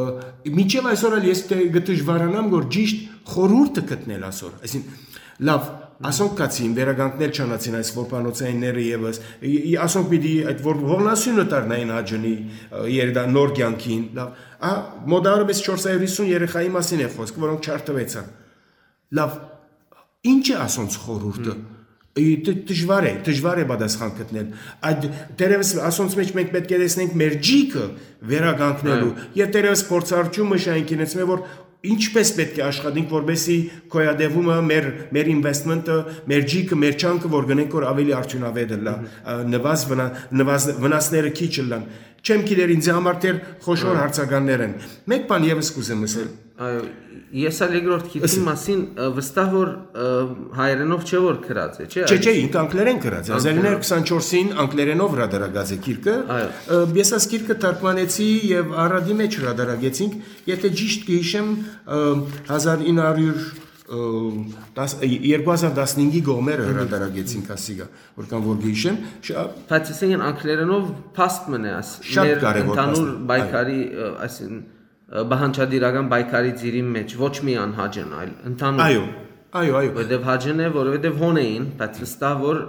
մինչեւ այսօր ալ ես դե-, կը դժվարանամ, որ ճիշտ խորհուրդը գտնել ասոր։ Այսինքն, լավ, ասոնք կացին, վերականգնել չանացին այս որբանոցայինները եւս, ի-, ի-, ասոնք պիտի այդ որ ողնասյունը դառնային Հաճնի, ը, երդա-, նոր կյանքին, լավ, ա, մոտարապես չորս հարյուր հիսուն երեխայի մասին է խոսք, որոնք չարդվեցան։ Լավ, ինչ է ասոնց խորհուրդը։ Մհմ։ Ի, դ-, դժվար է, դժվար է պատասխան գտնել։ Այդ, դերևս ասոնց մեջ մենք պետք է տեսնենք մեր ջիքը վերականգնելու։ Այո։ Եվ դերևս փորձառությունը շայնքին էս մե, որ ինչպես պետք է աշխատենք, որպեսզի գոյատևումը, մեր, մեր investment-ը, մեր ջիքը, մեր չանքը, որ գնենք, որ ավելի արդյունավետ ըլլա, Մհմ։ ա, նվազ վնա-, նվազ-, վնասները քիչ ըլլան։ Չեմ գիտեր, ինձ համար դեռ խոշոր Այո։ հարցականներ են։ Մեկ բան ևս կուզեմ ասել։ Այո, ես ալ երկրորդ գիրքին Ըսի։ մասին, ը, վստահ որ, ը, հայերենով չէ որ գրած է, չէ՞, Չէ, չէ, Ալիսի։ ինք անգլերեն գրած է։ Անգլերեն։ Հազար ինը հարյուր քսանչորսին անգլերենով հրադարակած է գիրքը։ Այո։ Ը, ես այս գիրքը թարգմանեցի և Արարատի մեջ հրադարակեցինք, եթե ճիշտ կհիշեմ, ը, հազար ինը հարյուր, ը, տաս-, ը, երկու հազար տասնհինգի կողմերը Մհմ։ հրադարակեցինք ասիգա, որքան որ կհիշեմ, շա-, Բայց այսինքն անգլերենով փաստ մնե աս, Շատ մեր կարևոր ընդհանուր փաստ է, այո։ պայքարի, ը, այսինքն, ը, պահանջատիրական պայքարի ծիրին մեջ, ոչ միայն Հաճն, այլ ընդհանուր։ Այո, այո, այո։ Որովհետև Հաճն է, որովհետև հոն էին, բայց վստահ որ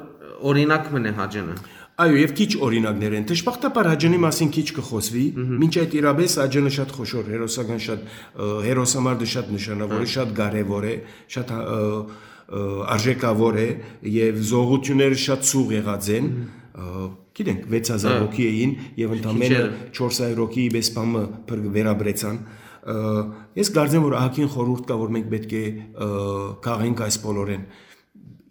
օրինակ մնե Հաճնը։ Այո, և քիչ օրինակներ են։ Դժբախտաբար Հաճնի մասին քիչ կխոսվի, Մհմ։ մինչ այդ իրապես Հաճնը շատ խոշոր, հերոսական շատ, ը, հերոսամարտը շատ նշանավոր է, Այո։ շատ կարևոր է, շատ, ը, ը, արժեքաւոր է եւ զողութիւնները շատ սուղ եղած են։ Ը, գիտենք, վեց հազար հոգի էին եւ ընդամենը չորս հարյուր հոգի իբես բամը փր-, վերաբրեցան։ Ը, ես կարծեմ, որ ահագին խորհուրդ կա, որ մենք պէտք է, ը, քաղենք այս բոլորեն։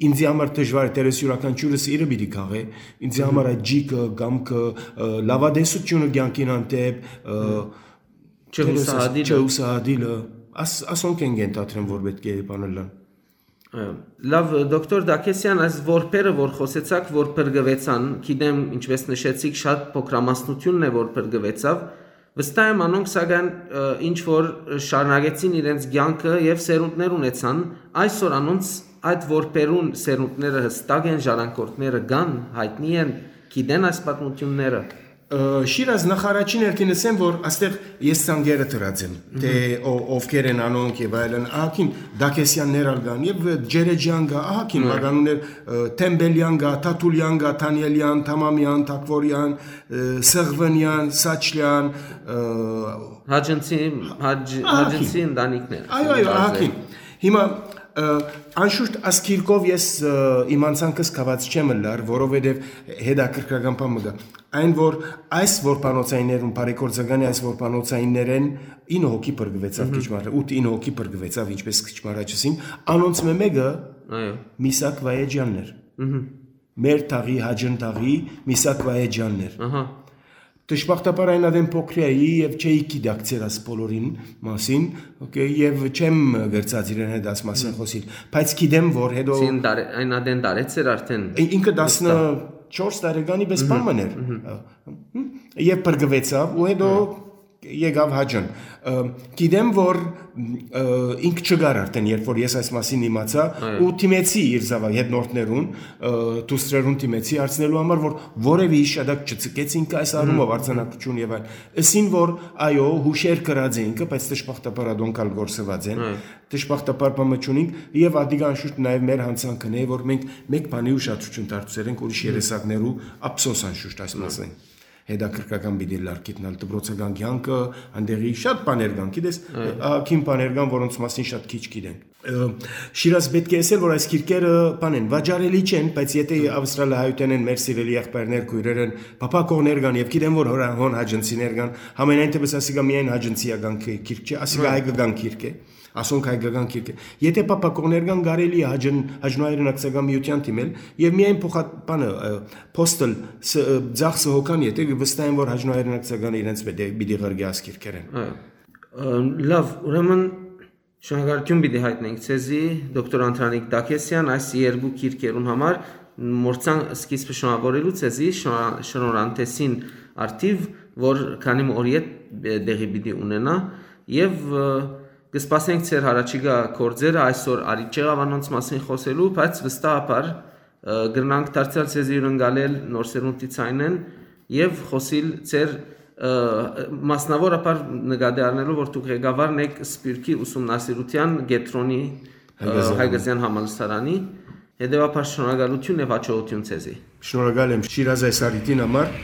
Ինձի համար դժուար է, դեռ ես իւրաքանչիւրս իրը պիտի քաղէ, ինձի համար այդ ջիքը, կամքը, ը, լաւատեսութիւնը կեանքին հանդէպ, ը, չհուսահատիլը։ Չհուսահատիլը, աս-, ասոնք են կենթադրեմ, որ պէտք է բանըլլան։ Ը, լաւ, դոկտոր Դաքեսյան, այս որբերը, որ խօսեցաք, որ փրկուեցան, գիտեմ, ինչպես նշեցիք, շատ փոքրամասնութիւնն է, որ փրկուեցաւ, վստահ եմ, անոնք, սակայն, ը, ինչ որ շարունակեցին իրենց կեանքը եւ սերունդներ ունեցան, այսօր անոնց այդ որբերուն սերունդները հստակ են, ժառանգորդները կան, յայտնի են, գիտեն այս պատմութիւնները։ Ը, Շիրազ, նախարարին հերթին ասեմ, որ աստեղ ես ցանկերը դրած եմ, թէ ո-, ովքեր են անոնք եւ այլն, ահագին Դաքեսյաններ ալ կան, եւ Ջերեջյան կա, ահագին մականուններ, ը, Թեմբելյան կա, Թաթուլյան կա, Թանիելյան, Թամամյան, Թակվորյան, ը, Սղվնյան, Սաչլյան, ը, Հաճնցի, Հաջ-, ահագին։ Հաճնցի ընտանիքներ։ Այո, այո, ահագին։ Հիմա, ը, անշուշտ, այս գիրքով ես, ը, իմ անցանքս կաված չեմ ըլլար, որովհետեւ հետաքրքրական բան մը կա։ Այն, որ այս որբանոցայիններուն, բարեգործականի այս որբանոցայիններէն ինը հոգի փրկուեցաւ քիչ մը առաջ, ութ ինը հոգի փրկուեցաւ, ինչպես քիչ մը առաջ ըսին, անոնց մէ մէկը Այո։ Միսակ Վայեջյանն էր։ Մհմ։ Մեր թաղի, Հաճն թաղի Միսակ Վայեջյանն էր։ Ահա։ Դժբախտաբար այն ատեն փոքրի էի եւ չէի գիտակցեր այս բոլորին մասին, օքեյ, եւ չեմ կրցած իրեն հետ այս մասին խոսիլ, բայց գիտեմ, որ հետո Սին դարե-, այն ատեն դարեց էր արդեն։ Ին-, ինքը Վստահ։ տասնչորս տարեկանի պես Մհմ, բան մըն էր։ մհմ։ Ը, հմ, եւ փրկուեցաւ ու հետո Մհմ։ եկավ Հաճն։ Ը, գիտեմ, որ, ը, ինք չկար արդեն, երբ որ ես այս մասին իմացայ, Այո։ ու դիմեցի իր զաւակ հետնորդներուն, ը, դուստրերուն դիմեցի հարցնելու համար, որ որեւէ հիշատակ չցկեց ինքը այս առումով Մհմ։ արձանագրություն եւ այլն։ Ըսին, որ այո, հուշեր կրած է ինքը, բայց դժբախտաբար ատոնք ալ գործուած են։ Այո։ Դժբախտաբար բան մը չունինք, եւ ադիգա անշուշտ նաեւ մեր յանցանքն է, որ մենք մեկ բանի ուշադրություն դարձրել ենք ուրիշ Մհմ։ երեսակներու, ափսոս անշուշտ այս Մհմ։ մասին։ Հետաքրքրական պիտի լար գիտնալ դպրոցական կեանքը, անդեղի շատ բաներ կան, գիտես, Այո։ ահագին բաներ կան, որոնց մասին շատ քիչ գիտենք։ Ը, Շիրազ, պէտք է ասել, որ այս գիրքերը բան են, վաճառելի չեն, բայց եթե Մհմ։ ավստրալահայութեն են, մեր սիրելի եղբայրներ, քոյրեր են, փափաքողներ կան, եւ գիտեմ, որ հորա-, հոն հաճնցիներ կան, համենայն դեպս ասիկա միայն հաճնցիական գի-, գիրք չէ, ասիկա Այո։ հայկական գիրք է, ասոնք հայկական գիրք է։ Եթե փափաքողներ կան, կարելի է Հաճն-, Հաճնոյ հայրենակցական միութեան դիմել եւ միայն փոխա-, բանը, ը, postal ս-, ը, ծախսը հոգան, եթե վստահ եմ, որ Հաճնոյ հայրենակցական իրենց պիտի, պիտի ղրկի այս գիրքերեն։ Այո։ Ը, լավ, ուրեմն շնորհակալություն պիտի հայտնենք ձեզի, դոկտոր Անդրանիկ Դաքեսյան, այս երկու գիրքերուն համար, մորցան սկիզբը շնորհավորելու ձեզի, շնորհ-, շնորհանդեսին արդիվ, որ քանի մը օր յետ, ը, տեղի պիտի ունենայ, եւ, ը, կսպասենք ձեր հառաջիկայ գործերը, այսօր արիթ չեղաւ անոնց մասին խօսելու, բայց վստահաբար, ը, կրնանք դարձեալ ձեզի հիւրընկալել Նոր Սերունդի ցայնէն եւ խօսիլ ձեր, ը, մասնաւորաբար նկատի առնելով, որ դուք ղեկավարն էք Սփիւռքի ուսումնասիրութեան կեդրոնի, ը, Հայկազեան Հայկազեան համալսարանի, հետեւաբար շնորհակալություն եւ հաջողություն ձեզի։ Շնորհակալ եմ Շիրազ այս առիթին համար։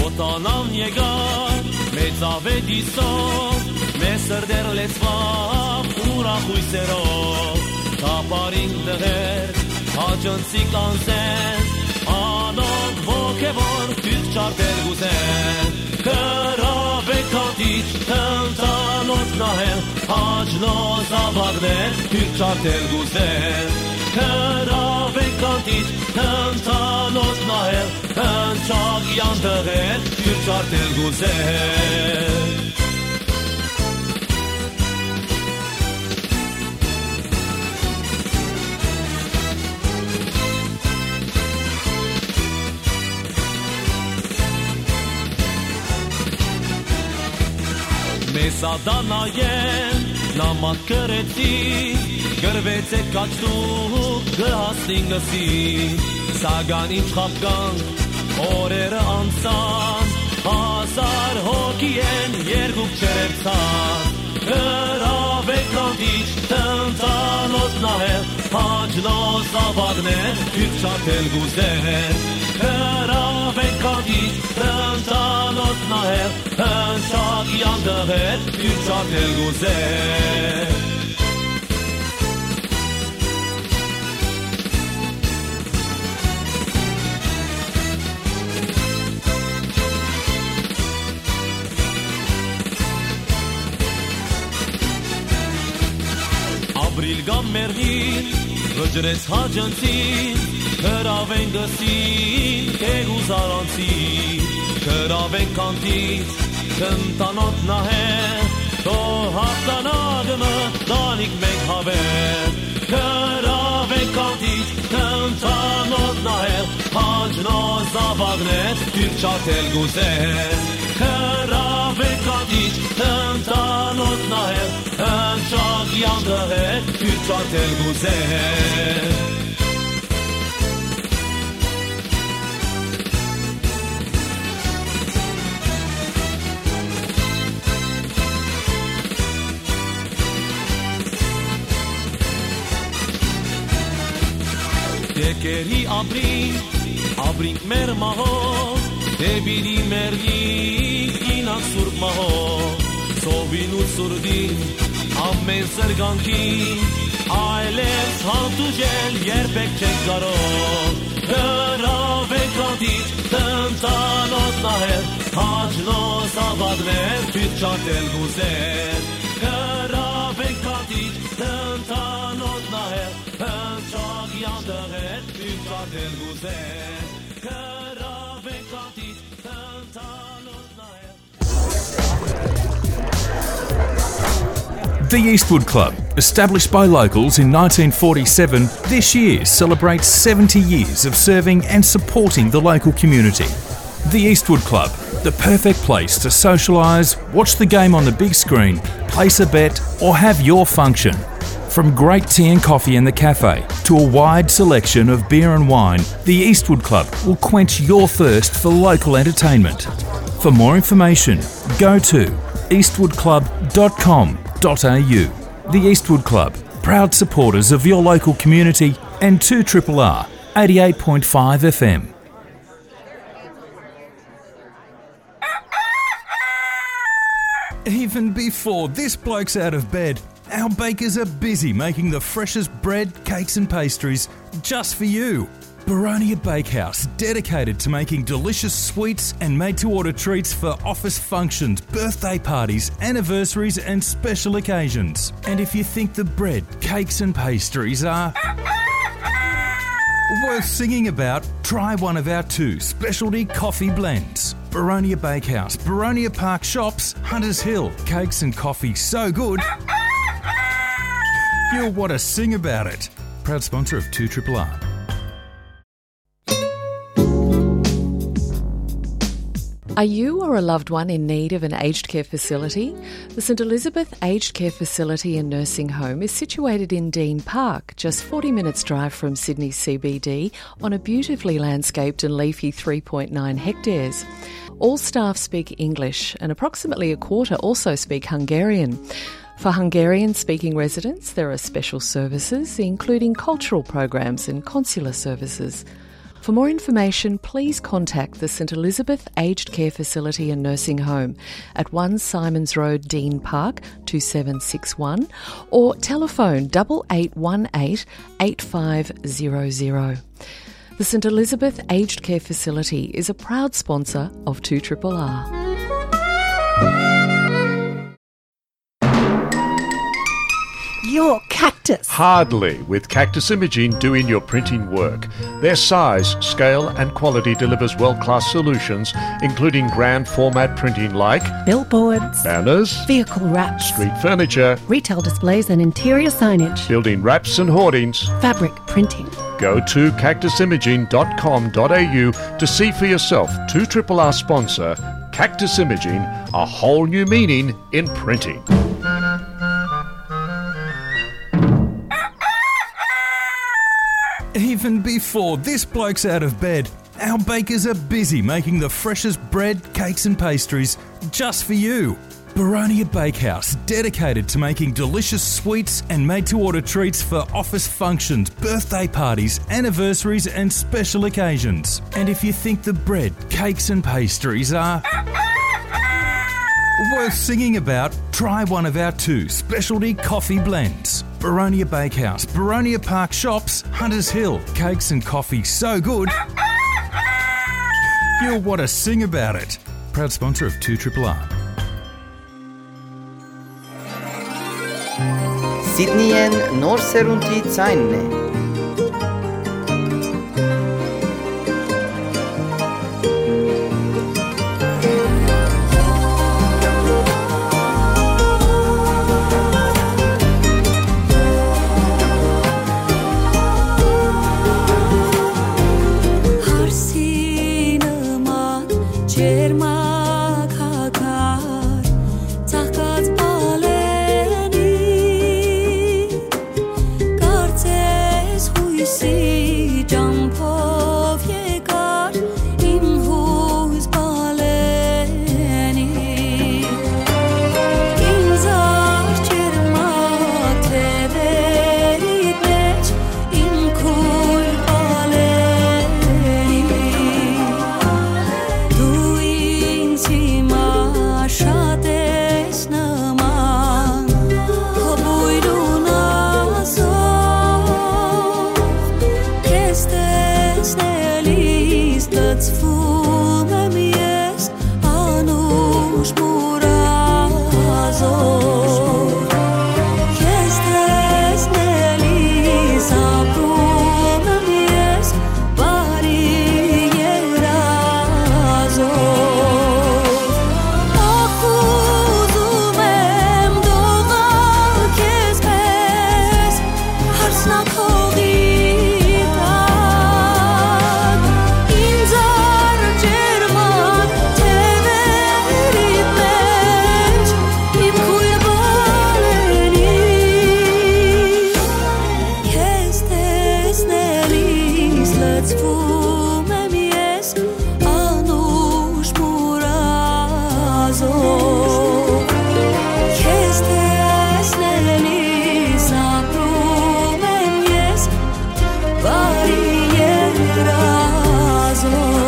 Օտանան եկար, մեծ ավետիսով, մեր սրտեր լեցուած ուրախ հույսերով, թափարին տղեր, հաճնցիկ անձեր, անոնք ոգեւոր թուրք չարդեր կ'ուզեն, գրաւեք քանթիչ, թնդանոց նահել, Հաճնոյ զաւակներ, թուրք չարդեր կ'ուզեն, գրաւեք քանթիչ, թնդանոց նահել, հնչակեան տղեր, թուրք չարդեր կ'ուզեն։ Տատանայեն նամակ գրեցի, գրվեցեք աչքուք կը հասնին գսի, սակայն ինչ խապկանք օրերը անցան, հազար հոգի են երկուք չերերցան, գրավեք կանտիչ, տնտանոց նահել, հաճնոց ավագներ, դուք չարդել կուզեն, գրավեք կանտիչ, տնտանոց նահել, հնչակ յանտեղեր, դուք չարդել կուզեն։ Ապրիլ կամ մեռնիլ, վճռեց հաճընցին, գրաւեն գսին, թեգուզ առանցին, գրաւեն կանտից, կնտանոտ նահեր, թող հաղթանակ մը տանիք մենք հավեր, գրաւեն կանտից, կնտանոտ նահեր, հաճնոց զաւակներ, դուք չարդել կուզեն, գրաւեն կանտից, կնտանոտ նահեր, հնչակ յանտեղեր, դուք չարդել կուզեն։ Եկերի ապրինք, ապրինք մեր մահով, դե պիտի մեռնինք, գնանք սուրբ մահով, ծովին ու ցուրտին, ամէն զրկանքին, այլեւս հանդուրժել երբեք չենք կարող։ Գրաւենք ատիճ, տնտանոց նահեր, հաճնոց ավագներ, դուք չարդել կուզեն։ Գրաւենք ատիճ, տնտանոց նահեր, հնչակ յանտեղեր, դուք չարդել կուզեն։ Գրաւենք ատիճ, տնտանոց նահեր, The Eastwood Club, established by locals in nineteen forty-seven, this year celebrates seventy years of serving and supporting the local community. The Eastwood Club, the perfect place to socialise, watch the game on the big screen, place a bet, or have your function. From great tea and coffee in the cafe to a wide selection of beer and wine, the Eastwood Club will quench your thirst for local entertainment. For more information, go to eastwood club dot com dot a u. The Eastwood Club, proud supporters of your local community and two triple R, eighty-eight point five F M. Even before this bloke's out of bed, our bakers are busy making the freshest bread, cakes and pastries just for you. Baronia Bakehouse, dedicated to making delicious sweets and made-to-order treats for office functions, birthday parties, anniversaries and special occasions. And if you think the bread, cakes and pastries are worth singing about, try one of our two specialty coffee blends. Baronia Bakehouse, Baronia Park Shops, Hunters Hill. Cakes and coffee so good, you'll want to sing about it. Proud sponsor of two triple R. Are you or a loved one in need of an aged care facility? The St Elizabeth Aged Care Facility and Nursing Home is situated in Dean Park, just forty minutes' drive from Sydney C B D, on a beautifully landscaped and leafy three point nine hectares. All staff speak English, and approximately a quarter also speak Hungarian. For Hungarian-speaking residents, there are special services, including cultural programs and consular services. For more information, please contact the St Elizabeth Aged Care Facility and Nursing Home at one Symonds Road, Dean Park, two seven six one, or telephone double eight one eight, eight five zero zero. The St Elizabeth Aged Care Facility is a proud sponsor of two triple R. Your Cactus. Hardly, with Cactus Imaging doing your printing work. Their size, scale, and quality delivers world-class solutions, including grand format printing like billboards, banners, vehicle wraps, street furniture, retail displays and interior signage, building wraps and hoardings, fabric printing. Go to cactus imaging dot com dot a u to see for yourself. Two triple R sponsor Cactus Imaging, a whole new meaning in printing. Even before this bloke's out of bed, our bakers are busy making the freshest bread, cakes, and pastries just for you. Baronia Bakehouse, dedicated to making delicious sweets and made to order treats for office functions, birthday parties, anniversaries, and special occasions. And if you think the bread, cakes, and pastries are worth singing about, try one of our two specialty coffee blends. Baronia Bakehouse, Baronia Park Shops, Hunters Hill. Cakes and coffee so good, you'll want to sing about it. Proud sponsor of two R R R. Սիդնիեն նոր սերունդի ձայնն է։ Հարսի նման ջերմակագար ծաղկած բալենի, կարծես յոյսի ճամբով եկար իմ յոյս բալենի։ Ինձ արջերմակ թևերիդ մէջ իմ քոյր բալենի, դու ինձ հիմա շատ ես նման, քո բոյրուն ազով, քեզ տեսնելիս լցվում եմ ես անուշ մուրազով, քեզ տեսնելիս ապրում եմ ես բարի երազով։ Ախ, ուզում եմ դողալ քեզ պես, հարսնաքողի տակ, ինձ արջերմակ թևերիդ մէջ իմ քոյր բալենի, քեզ տեսնելիս լցվում եմ ես անուշ մուրազով, քեզ տեսնելիս ապրում եմ ես բարի երազով։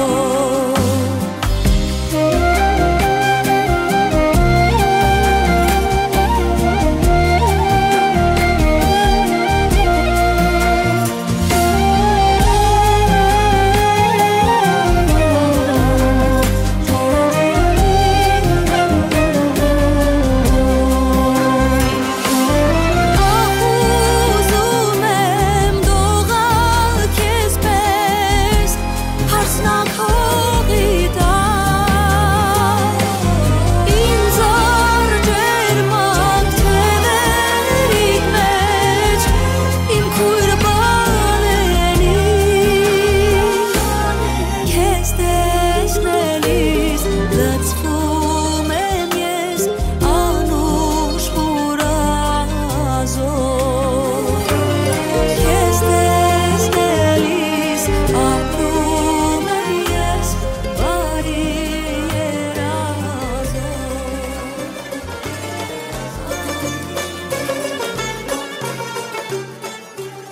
Ախ, ուզում եմ դողալ քեզ պես, հարսնաքողի տակ, ինձ արջերմակ թևերիդ մէջ իմ քոյր բալենի, քեզ տեսնելիս լցվում եմ ես անուշ մուրազով, քեզ տեսնելիս ապրում եմ ես բարի երազով։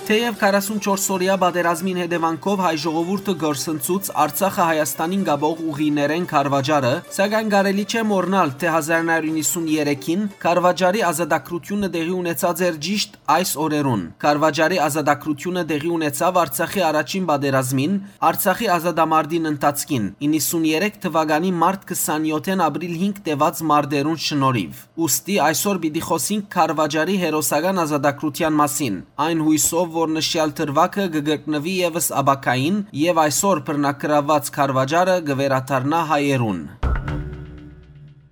Թեեւ քառասունչորս օրեայ պատերազմին հետեւանքով հայ ժողովուրդը կորսնցուց Արցախը Հայաստանին կապող ուղիներէն քարուաճառը, սակայն կարելի չէ մոռնալ, թէ հազար նոյ հարիւր իննսուններեքին քարուաճառի ազատագրութիւնը տեղի ունեցած էր ճիշդ այս օրերուն։ Քարուաճառի ազատագրութիւնը տեղի ունեցաւ Արցախի առաջին պատերազմին, Արցախի ազատամարտին ընթացքին, իննսուններեք թուականի մարտ քսանեօթէն ապրիլ հինգ տեւած մարտերուն շնորհիւ։ Ուստի այսօր պիտի խօսենք քարուաճառի հերոսական ազատագրութեան մասին, այն յոյսով, որ նշեալ դրուագը կը կրկնուի եւս ապագային եւ այսօր բռնագրաւուած քարուաճառը կը վերադառնայ հայերուն։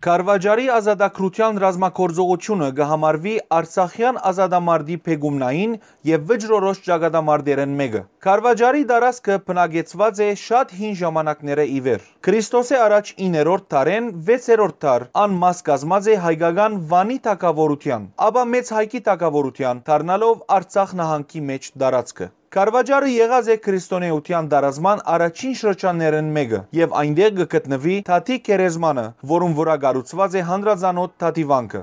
Քարվաճառի ազատագրութեան ռազմագործողութիւնը կը համարուի արցախեան ազատամարտի բեկումնային եւ վճռորոշ ճակատամարտերէն մէկը։ Քարվաճառի տարածքը բնակեցուած է շատ հին ժամանակներէ ի վեր։ Քրիստոսէ առաջ իններորդ դարէն վեցերորդ դար անմաս կազմած է հայկական Վանի թագաւորութեան, ապա Մեծ Հայկի թագաւորութեան, դառնալով Արցախ նահանգի մէջ տարածքը։ Քարվաճառը եղած է քրիստոնէութեան տարածման առաջին շրջաններէն մէկը եւ այնտեղ կը գտնուի Թաթի գերեզմանը, որուն վրայ կառուցուած է հանրածանօթ Թաթի վանքը։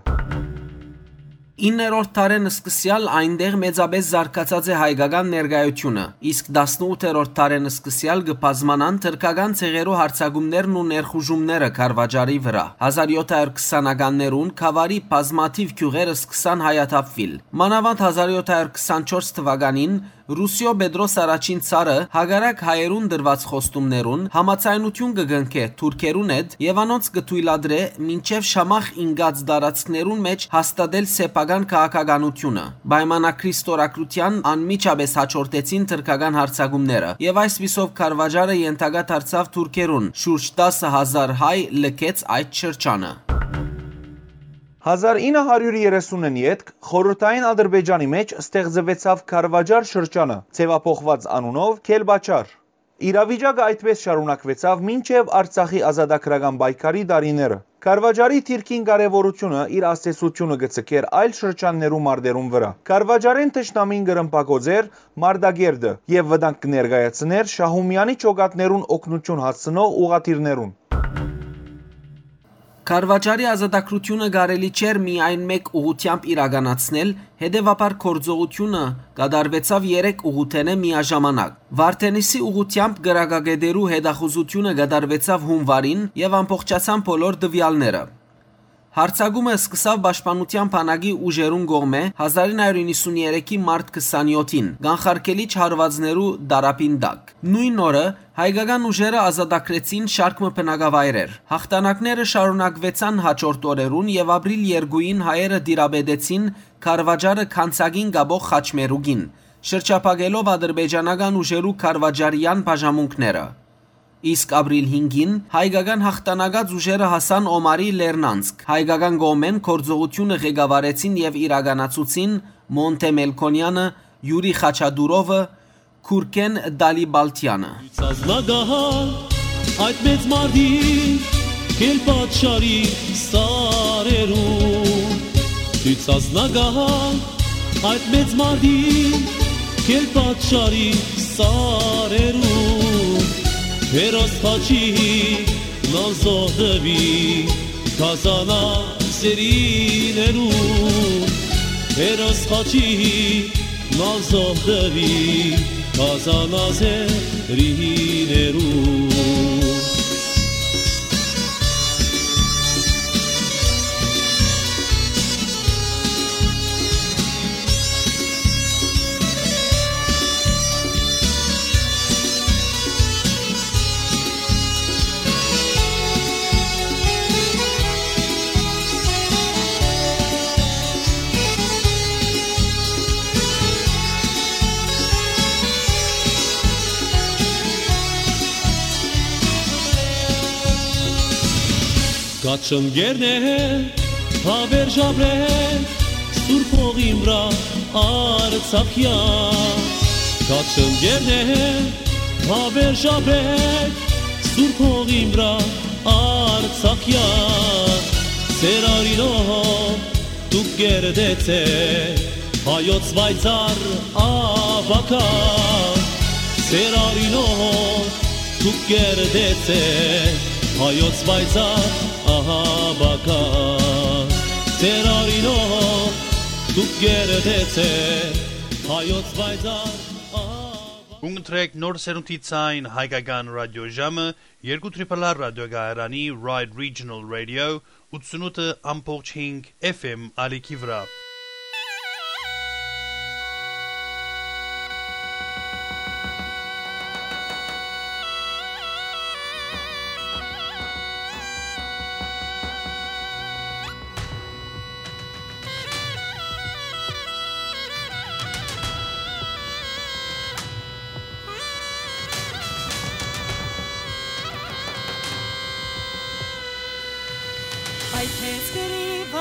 Իններորդ դարէն սկսեալ այնտեղ մեծապէս զարգացած է հայկական ներկայութիւնը, իսկ տասնութերորդ դարէն սկսեալ կը բազմանան թրքական ցեղերու յարձակումներն ու ներխուժումները Քարվաճառի վրայ։ Հազար յոթ հարիւր քսանականներուն Քավարի բազմաթիւ գիւղեր սկսան հայաթափուիլ։ Մանաւանդ հազար յոթ հարիւր քսանչորս թուականին Ռուսիոյ Պետրոս Առաջին Ցարը, հակառակ հայերուն տրուած խոստումներուն, համաձայնութիւն կը կնքէ թուրքերուն հետ եւ անոնց կը թոյլատրէ մինչեւ Շամախ ինկած տարածքներուն մէջ հաստատել սեփական քաղաքականութիւնը։ Պայմանագրի ստորագրութեան անմիջապէս յաջորդեցին թրքական յարձակումները եւ այսպիսով Քարվաճառը ենթակայ դարձաւ թուրքերուն, շուրջ տասը հազար հայ լքեց այդ շրջանը։ Հազար ինը հարիւր երեսունին ետք Խորհրդային Ադրբեջանի մէջ ստեղծուեցաւ Քարվաճառ շրջանը, ձեւափոխուած անունով Քելպաչար։ Իրավիճակը այդպէս շարունակուեցաւ մինչեւ Արցախի ազատագրական պայքարի տարիները։ Քարվաճառի դիրքին կարեւորութիւնը իր ազդեցութիւնը կը ձգէր այլ շրջաններու մարտերուն վրայ։ Քարվաճառէն թշնամին կը ռմբակոծէր Մարտակերտը եւ վտանգ կը ներկայացնէր Շահումեանի ջոկատներուն օգնութիւն հասցնող ուղղաթիռներուն։ Քարվաճառի ազատագրութիւնը կարելի չէր միայն մէկ ուղղութեամբ իրականացնել, հետեւաբար գործողութիւնը կատարուեցաւ երեք ուղղութենէ միաժամանակ։ Վարդենիսի ուղղութեամբ կրակակետերու հետախուզութիւնը կատարուեցաւ յունուարին եւ ամբողջացան բոլոր տուեալները։ Յարձակումը սկսաւ պաշտպանութեան բանակի ուժերուն կողմէ հազար ինը հարիւր իննսուններեքի մարտ քսանեօթին, կանխարգելիչ հարուածներու տարափին տակ։ Նոյն օրը հայկական ուժերը ազատագրեցին շարք մը բնակավայրեր։ Յաղթանակները շարունակուեցան յաջորդ օրերուն եւ ապրիլ երկուին հայերը տիրապետեցին Քարվաճառը Քանցակին կապող խաչմերուկին, շրջափակելով ադրբեջանական ուժերու քարվաճառեան բաժամունքները։ Իսկ ապրիլ հինգին հայկական յաղթանակած ուժերը հասան Օմարի Լեռնանցք։ Հայկական կողմէն գործողութիւնը ղեկավարեցին եւ իրականացուցին Մոնտէ Մելքոնեանը, Յուրի Խաչատուրովը, Քուրքեն Դալիբալթեանը։ Ցազնակահար այդ մեծ մարտի Քելպաչարի սարերուն, դու ցազնակահար այդ մեծ մարտի Քելպաչարի սարերուն, հերոս Խաչի նազոհ տուի Կազանա սերիներուն, հերոս Խաչի նազոհ տուի Կազանա սերիներուն։ Կաչնկերներ, հավերժաբեր, սուրբ հողին վրա Արցախեան։ Կաչնկերներ, հավերժաբեր, սուրբ հողին վրա Արցախեան։ Սեր արինով դուք կերտեցէ հայոց պայծառ ապագա, սեր արինով դուք կերտեցէ հայոց պայծառ ապագա, սեր արինով դուք կերտեցէ հայոց պայծառ ապագա։ Կընտրեք նոր սերունդի ցայն հայկական ռադիոժամը երկու triple R ռադիոկայարանի Ride Regional Radio ութսունութ ամբողջ հինգ F M ալիքի վրայ։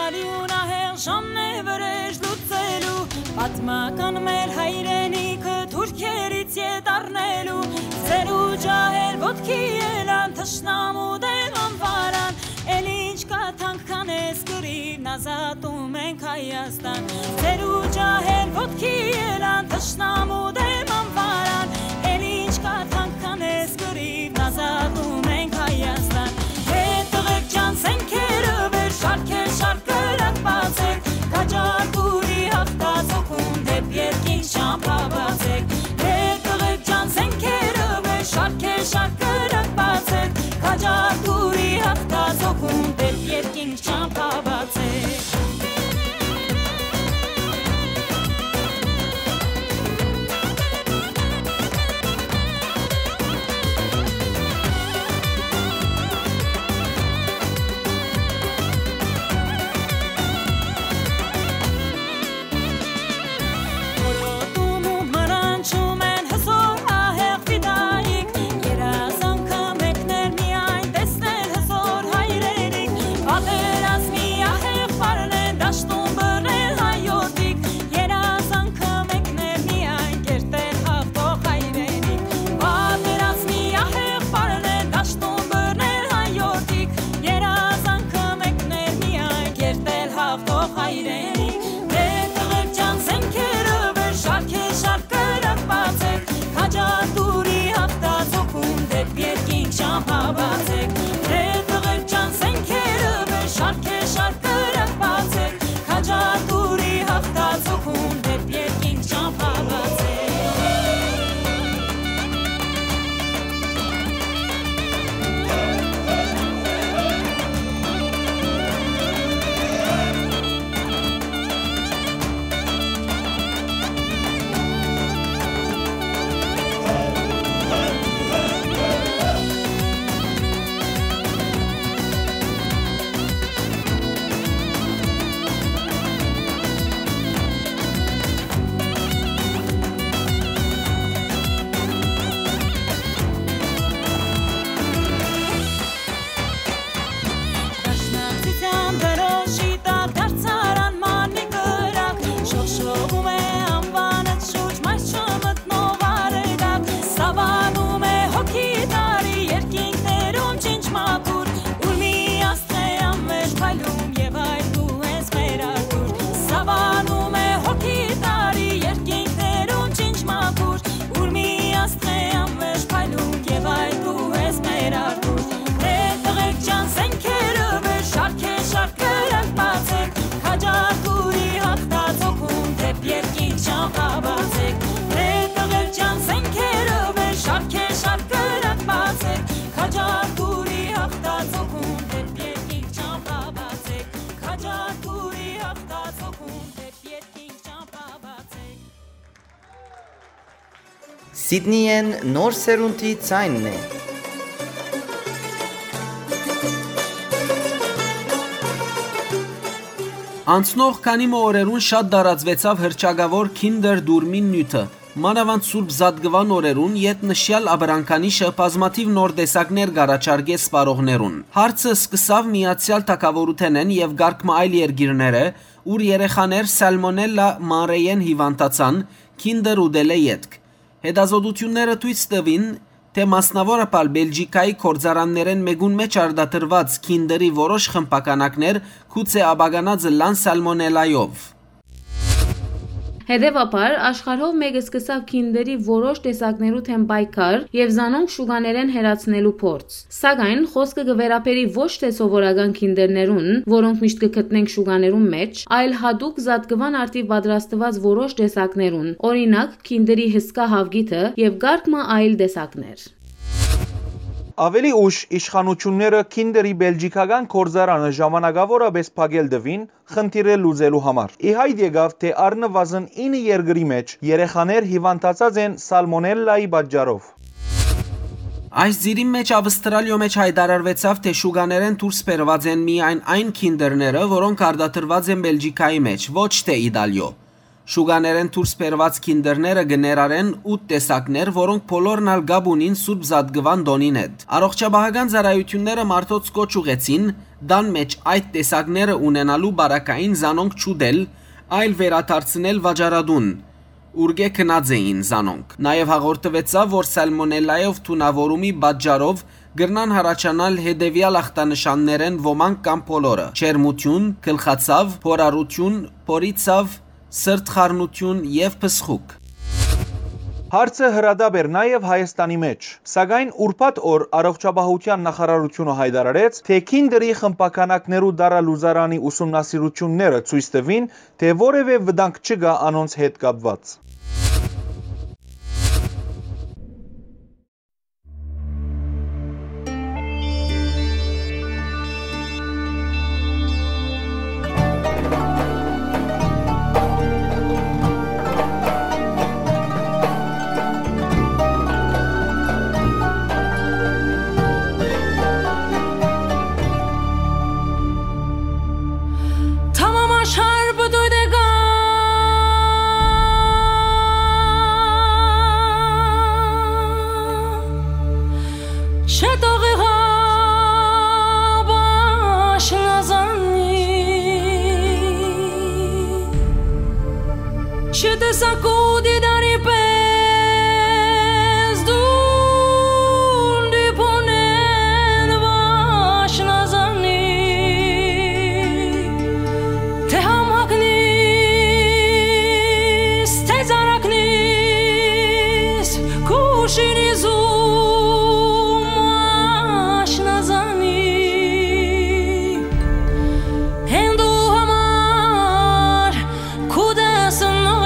Ալիուն ահեղ ժամն է վրեժ լուծելու, պատմական մեր հայրենիքը թուրքերից ետ առնելու, ծերու ջահել ոտքի ելան թշնամու դեմ անվարան, էլ ինչ կա թանկ քան էս կռիվն, ազատում ենք Հայաստան, ծերու ջահել ոտքի ելան թշնամու դեմ անվարան, էլ ինչ կա թանկ քան էս կռիվն, ազատում ենք Հայաստան, հետ տղեկ ջան, զենքերը վեր շարքեր շարք կրակ բացեք, քաջարդուրի հաղթածոքում դեպ երկինք ճամփա բացեք, դե տղեկ ջան, զենքերը մեր շարքեր շարք կրակ բացեք, քաջարդուրի հաղթածոքում դեպ երկինք ճամփա բացեք։ Որոտում ու մարանչում են հզոր ահեղ ֆիդայիկ, երազանքը մեկն էր միայն տեսնել հզոր հայրենիք, պատերազմի ահեղ պարն են դաշտում բռնել հայորդիք, երազանքը մեկն էր միայն կերտել հաղթող հայրենիք, պատերազմի ահեղ պարն են դաշտում բռնել հայորդիք, երազանքը մեկն էր միայն կերտել հաղթող հայրենիք, դե տղեկ ջան, զենքերը վեր շարքեր շարք կրակ բացեք, քաջարդուրի հաղթածոքում դեպ երկինք ճամփա բացեք, դե տղեկ ջան, զենքերը վեր շարքեր շարք կրակ բացեք, քաջարդուրի հաղթածոքում դեպ երկինք ճամփա բացեք։ Դաշնակցության դրոշի տակ դարձարան մանի կրակ, շողշողում է անվանդ շուրջ մայր չմտնող արեգակ, սավանում է հոգի տարի երկինքներում ջինջ մաքուր, ուր մի աստղ է անմեջ փայլում և այլ դու ես մեր Արթուր, սավանում է հոգի տարի երկինքներում ջինջ մաքուր, ուր մի աստղ է անմեջ փայլում և այլ դու ես մեր Արթուր, դե տղեկ ջան, զենքերը վեր շարքեր շարք կրակ բացեք, քաջարդուրի հաղթածոքում դեպ երկինք ճամփա բացեք, դե տղեկ ջան, զենքերը վեր շարքեր շարք կրակ բացեք, քաջարդուրի հաղթածոքում դեպ երկինք ճամփա բացեք, քաջարդուրի հաղթածոքում դեպ երկինք ճամփա բացեք։ Սիդնիեն նոր սերունդի ձայնն է։ Անցնող քանի մը օրերուն շատ տարածուեցաւ հռչակաւոր Kinder Դուրմին նիւթը, մանաւանդ Սուրբ Զատկուան օրերուն, երբ նշեալ ապրանքանիշը բազմաթիւ նոր տեսակներ կառաջարկէ սպառողներուն։ Հարցը սկսաւ Միացեալ Թագաւորութենէն եւ կարգ մը այլ երկիրները, ուր երեխաներ սալմոնելլա մանրէյէն հիւանդացան, Kinder ուտելէ ետք։ Հետազոտութիւնները ցոյց տուին, թէ մասնաւորաբար Բելճիկայի գործարաններէն մէկուն մէջ արտադրուած Kinder-ի որոշ խմբականակներ գուցէ ապականած ըլլան սալմոնելայով։ Հետեւաբար, աշխարհով մէկը սկսաւ Kinder-ի որոշ տեսակներու դէմ պայքար եւ զանոնք շուկաներէն հեռացնելու փորձ։ Սակայն, խօսքը կը վերաբերի ոչ թէ սովորական Kinder-ներուն, որոնք միշտ կը գտնենք շուկաներուն մէջ, այլ յատուկ զատկուան արդիւ պատրաստուած որոշ տեսակներուն, օրինակ, Kinder-ի հսկայ հաւկիթը եւ կարգ մը այլ տեսակներ։ Աւելի ուշ իշխանութիւնները Kinder-ի բելճիքական գործարանը ժամանակաւորապէս փակել տուին, խնդիրը լուծելու համար։ Ի հայտ եկաւ, թէ առնուազն ինը երկրի մէջ երեխաներ հիւանդացած են սալմոնելլայի պատճառով։ Այս ծիրին մէջ Ավստրալիոյ մէջ յայտարարուեցաւ, թէ շուկաներէն դուրս բերուած են միայն այն Kinder-ները, որոնք արտադրուած են Բելճիկայի մէջ, ոչ թէ Իտալիոյ։ Շուկաներէն դուրս բերուած Kinder-ները կը ներառեն ութ տեսակներ, որոնք բոլորն ալ կապ ունին Սուրբ Զատկուան տօնին հետ։ Առողջապահական ծառայութիւնները մարդոց կոչ ուղղեցին Տան մէջ այդ տեսակները ունենալու պարագային զանոնք չուտել, այլ վերադարձնել վաճառատուն, ուրկէ գնած էին զանոնք։ Նաեւ հաղորդուեցաւ, որ սալմոնելլայով թունաւորումի պատճառով կրնան յառաջանալ հետեւեալ ախտանշաններէն ոմանք կամ բոլորը՝ ջերմութիւն, գլխացաւ, փորառութիւն, փորի ցաւ, սրտխառնութիւն եւ փսխուկ։ Հարցը հրատապ էր նաեւ Հայաստանի մէջ, սակայն ուրբաթ օր առողջապահութեան նախարարութիւնը յայտարարեց, թէ Քինդերի խմբաքանակներու տարալուծարանի ուսումնասիրութիւնները ցոյց տուին, թէ որեւէ վտանգ չկայ անոնց հետ կապուած։ Tamam aşar bu duyduğum. Çetoğu başına zanni. Çete sakudi dari pez dun di ponen başına zanni. Te hamhaknis, te zaraknis, kuşini zum aşna zani. Endu hamar kudes nogan.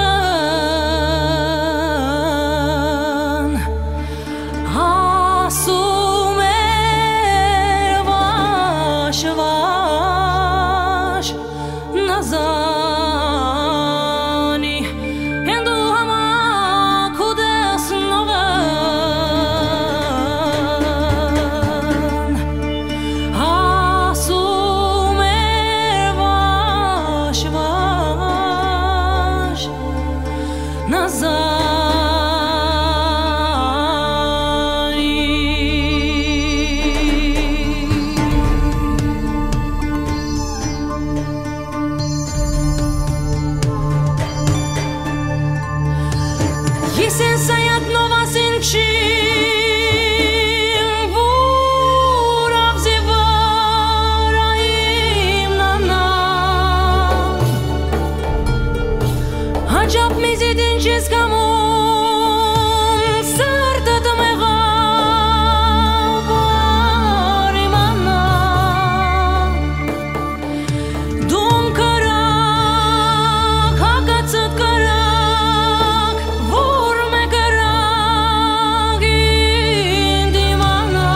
Asum er vaş vaş nazani. Endu hama kudes nogan. Asum er vaş vaş. Nazani. Yesen sayat novasin çin vur avzi vara imnana. Acap mizidin çizkamun sırtıt meğabar imana. Dum karak, hakatsıt karak, vurme karak indimana.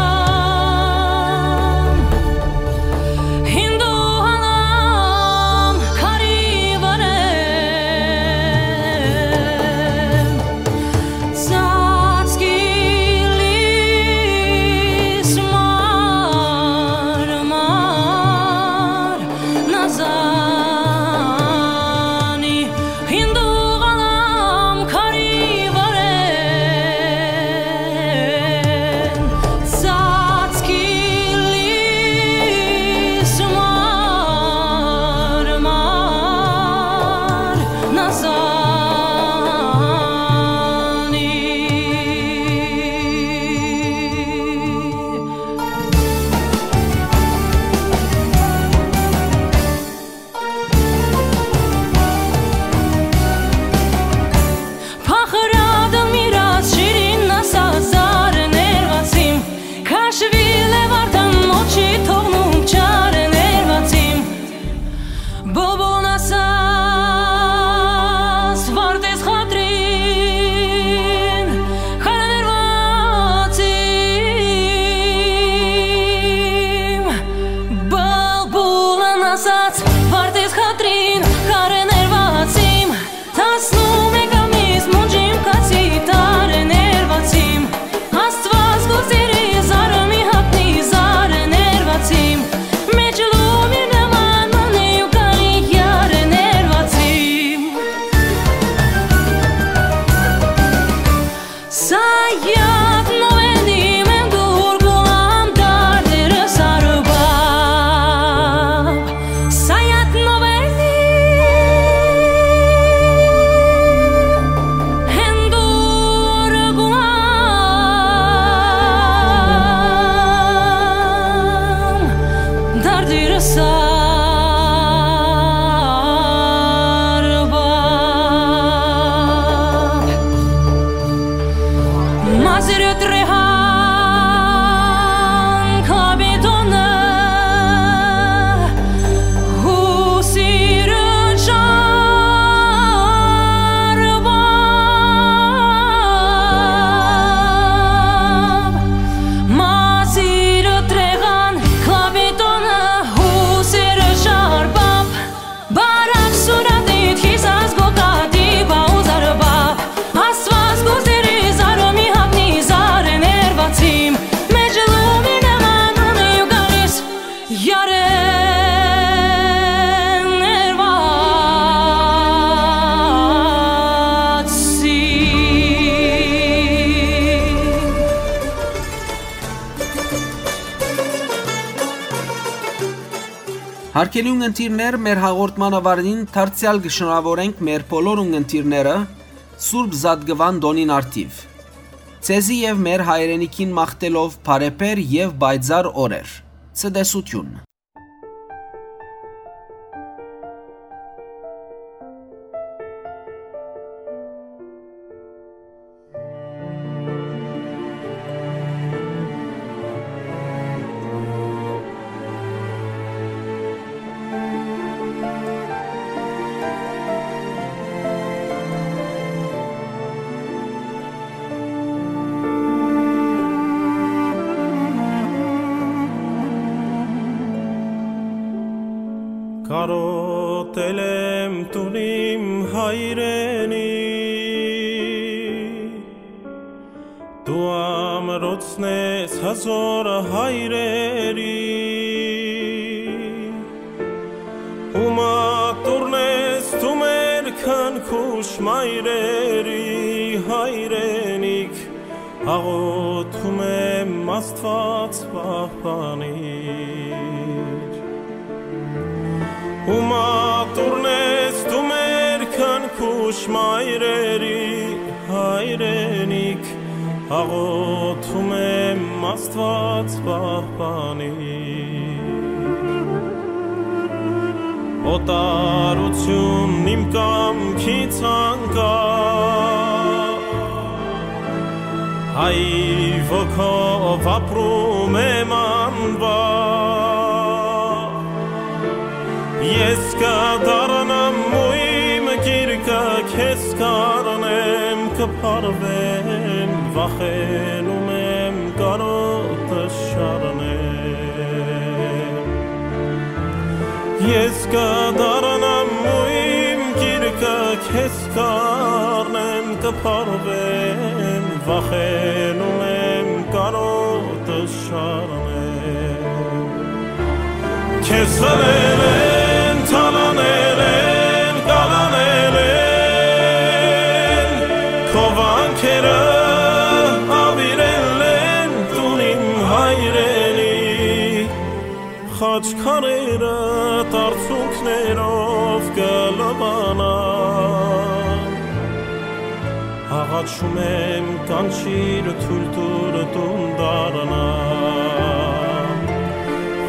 Hindu halam kari varen. Հարգելի ունգընտիրներ, մեր հաղորդման ավարտին դարձեալ կը շնորհավորենք մեր բոլոր ունգընտիրները Սուրբ Զատկուան տօնին առթիւ։ Ձեզի եւ մեր հայրենիքին մաղթելով բարեբեր եւ պայծառ օրեր։ Ցտեսություն։ Կարօտել եմ տուն իմ հայրենի, դու ամրոցն ես հազոր հայրերի, ու մատուռն ես դու մեր քնքուշ մայրերի հայրենիք, աղոթում եմ Աստուած պահպանիր։ Ու մատուռն ես դու մեր քնքուշ մայրերի հայրենիք, աղոթում եմ Աստուած պահպանիր։ Օտարությունն իմ կամքից անկախ, հայ ոգով ապրում եմ անվախ։ Ես կդառնամ ու իմ գիրկը քեզ կառնեմ, կփարվեմ, վախենում եմ կարօտը շառնեմ։ Ես կդառնամ ու իմ գիրկը քեզ կառնեմ, կփարվեմ, վախենում եմ կարօտը շառնեմ։ Քեզ խլել են, թալանել են, կալանել են, քո վանքերը աւիրել են տուն իմ հայրենի, խաչքարերը արցունքներով կը լվանան։ Աղաչում եմ, կանչիր, թոյլ տուր տուն դառնամ,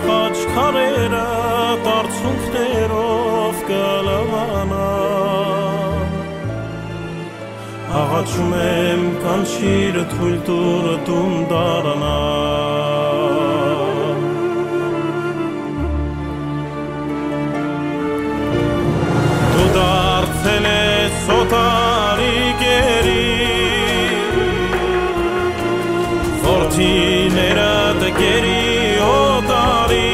խաչքարերը արցունքներով կը լվանան։ Աղաչում եմ, կանչիր, թոյլ տուր տուն դառնամ։ Դու դարձել ես օտարի գերի, որդիներդ գերի օտարի։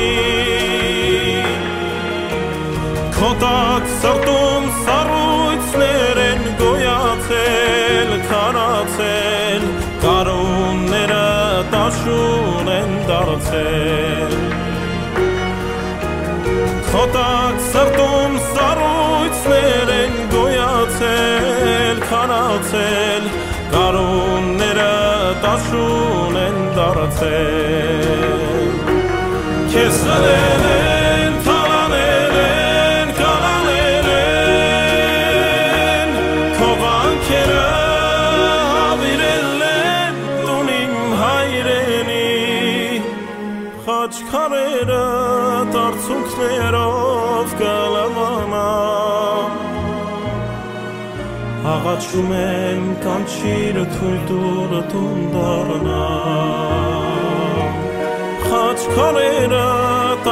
Քո տակ սրտում սառոյցներ են գոյացել, քարացել, գարունները դաշուն են դարձել։ Քո տակ սրտում սառոյցներ են գոյացել, քարացել, գարունները դաշուն են դարձել։ Քեզ խլել են, թալանել են, կալանել են, քո վանքերը աւիրել են տուն իմ հայրենի, խաչքարերը արցունքներով կը լվանան։ Աղաչում եմ, կանչիր, թոյլ տուր տուն դառնամ, խաչքարերը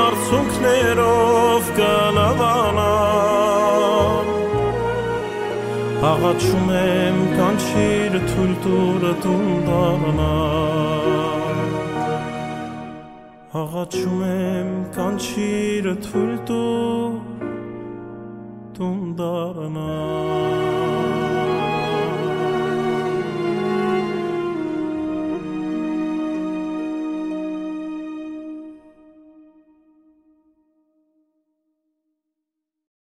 արցունքներով կը լվանան։ Աղաչում եմ, կանչիր, թոյլ տուր տուն դառնամ։ Աղաչում եմ, կանչիր, թոյլ տուր տուն դառնամ։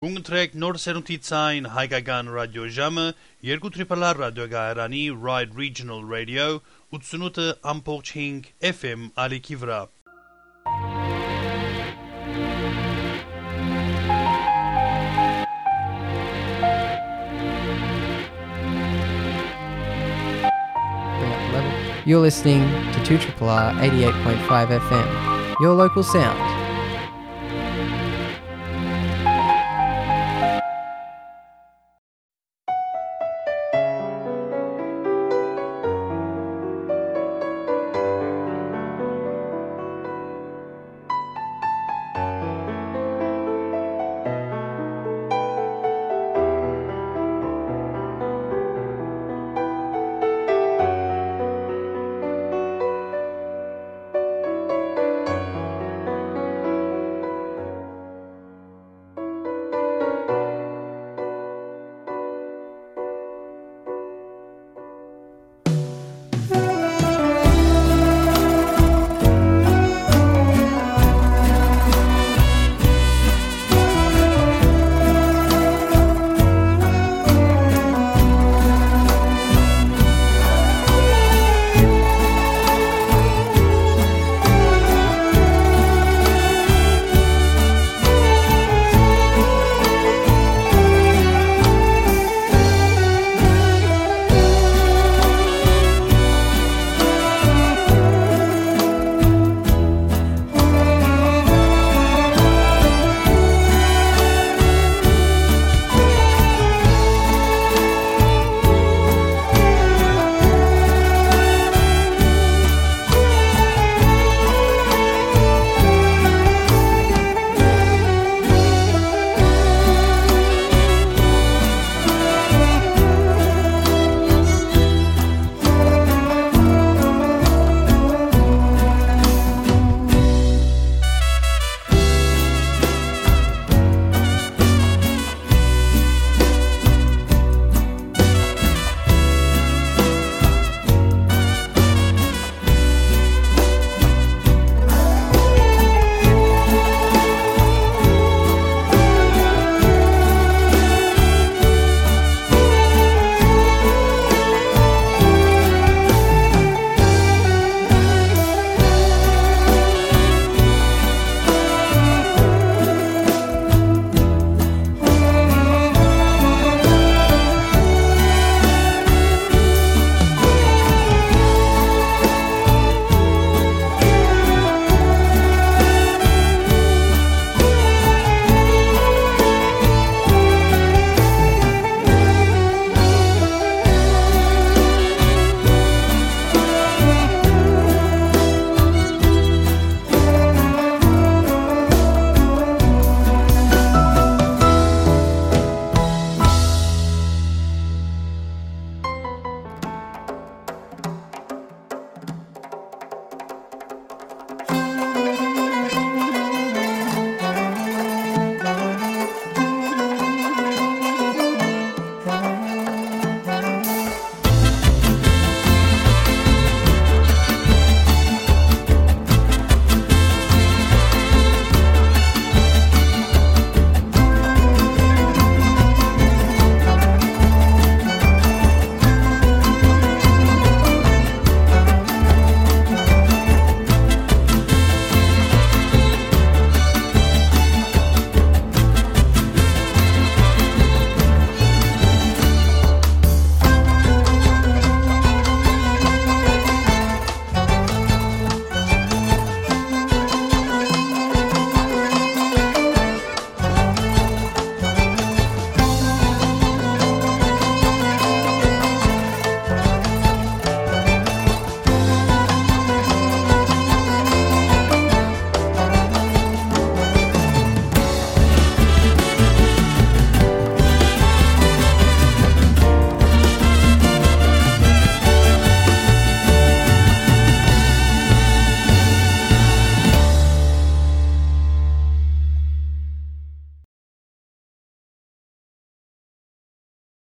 Կընտրեք Նոր Սերունդի Ձայն հայկական ռադիո ժամը, երկու Triple R ռադիոկայարանի Ride Regional Radio, ութսունութ ամբողջ հինգ F M ալիքի վրայ։ You're listening to two triple R eighty-eight point five F M, your local sound.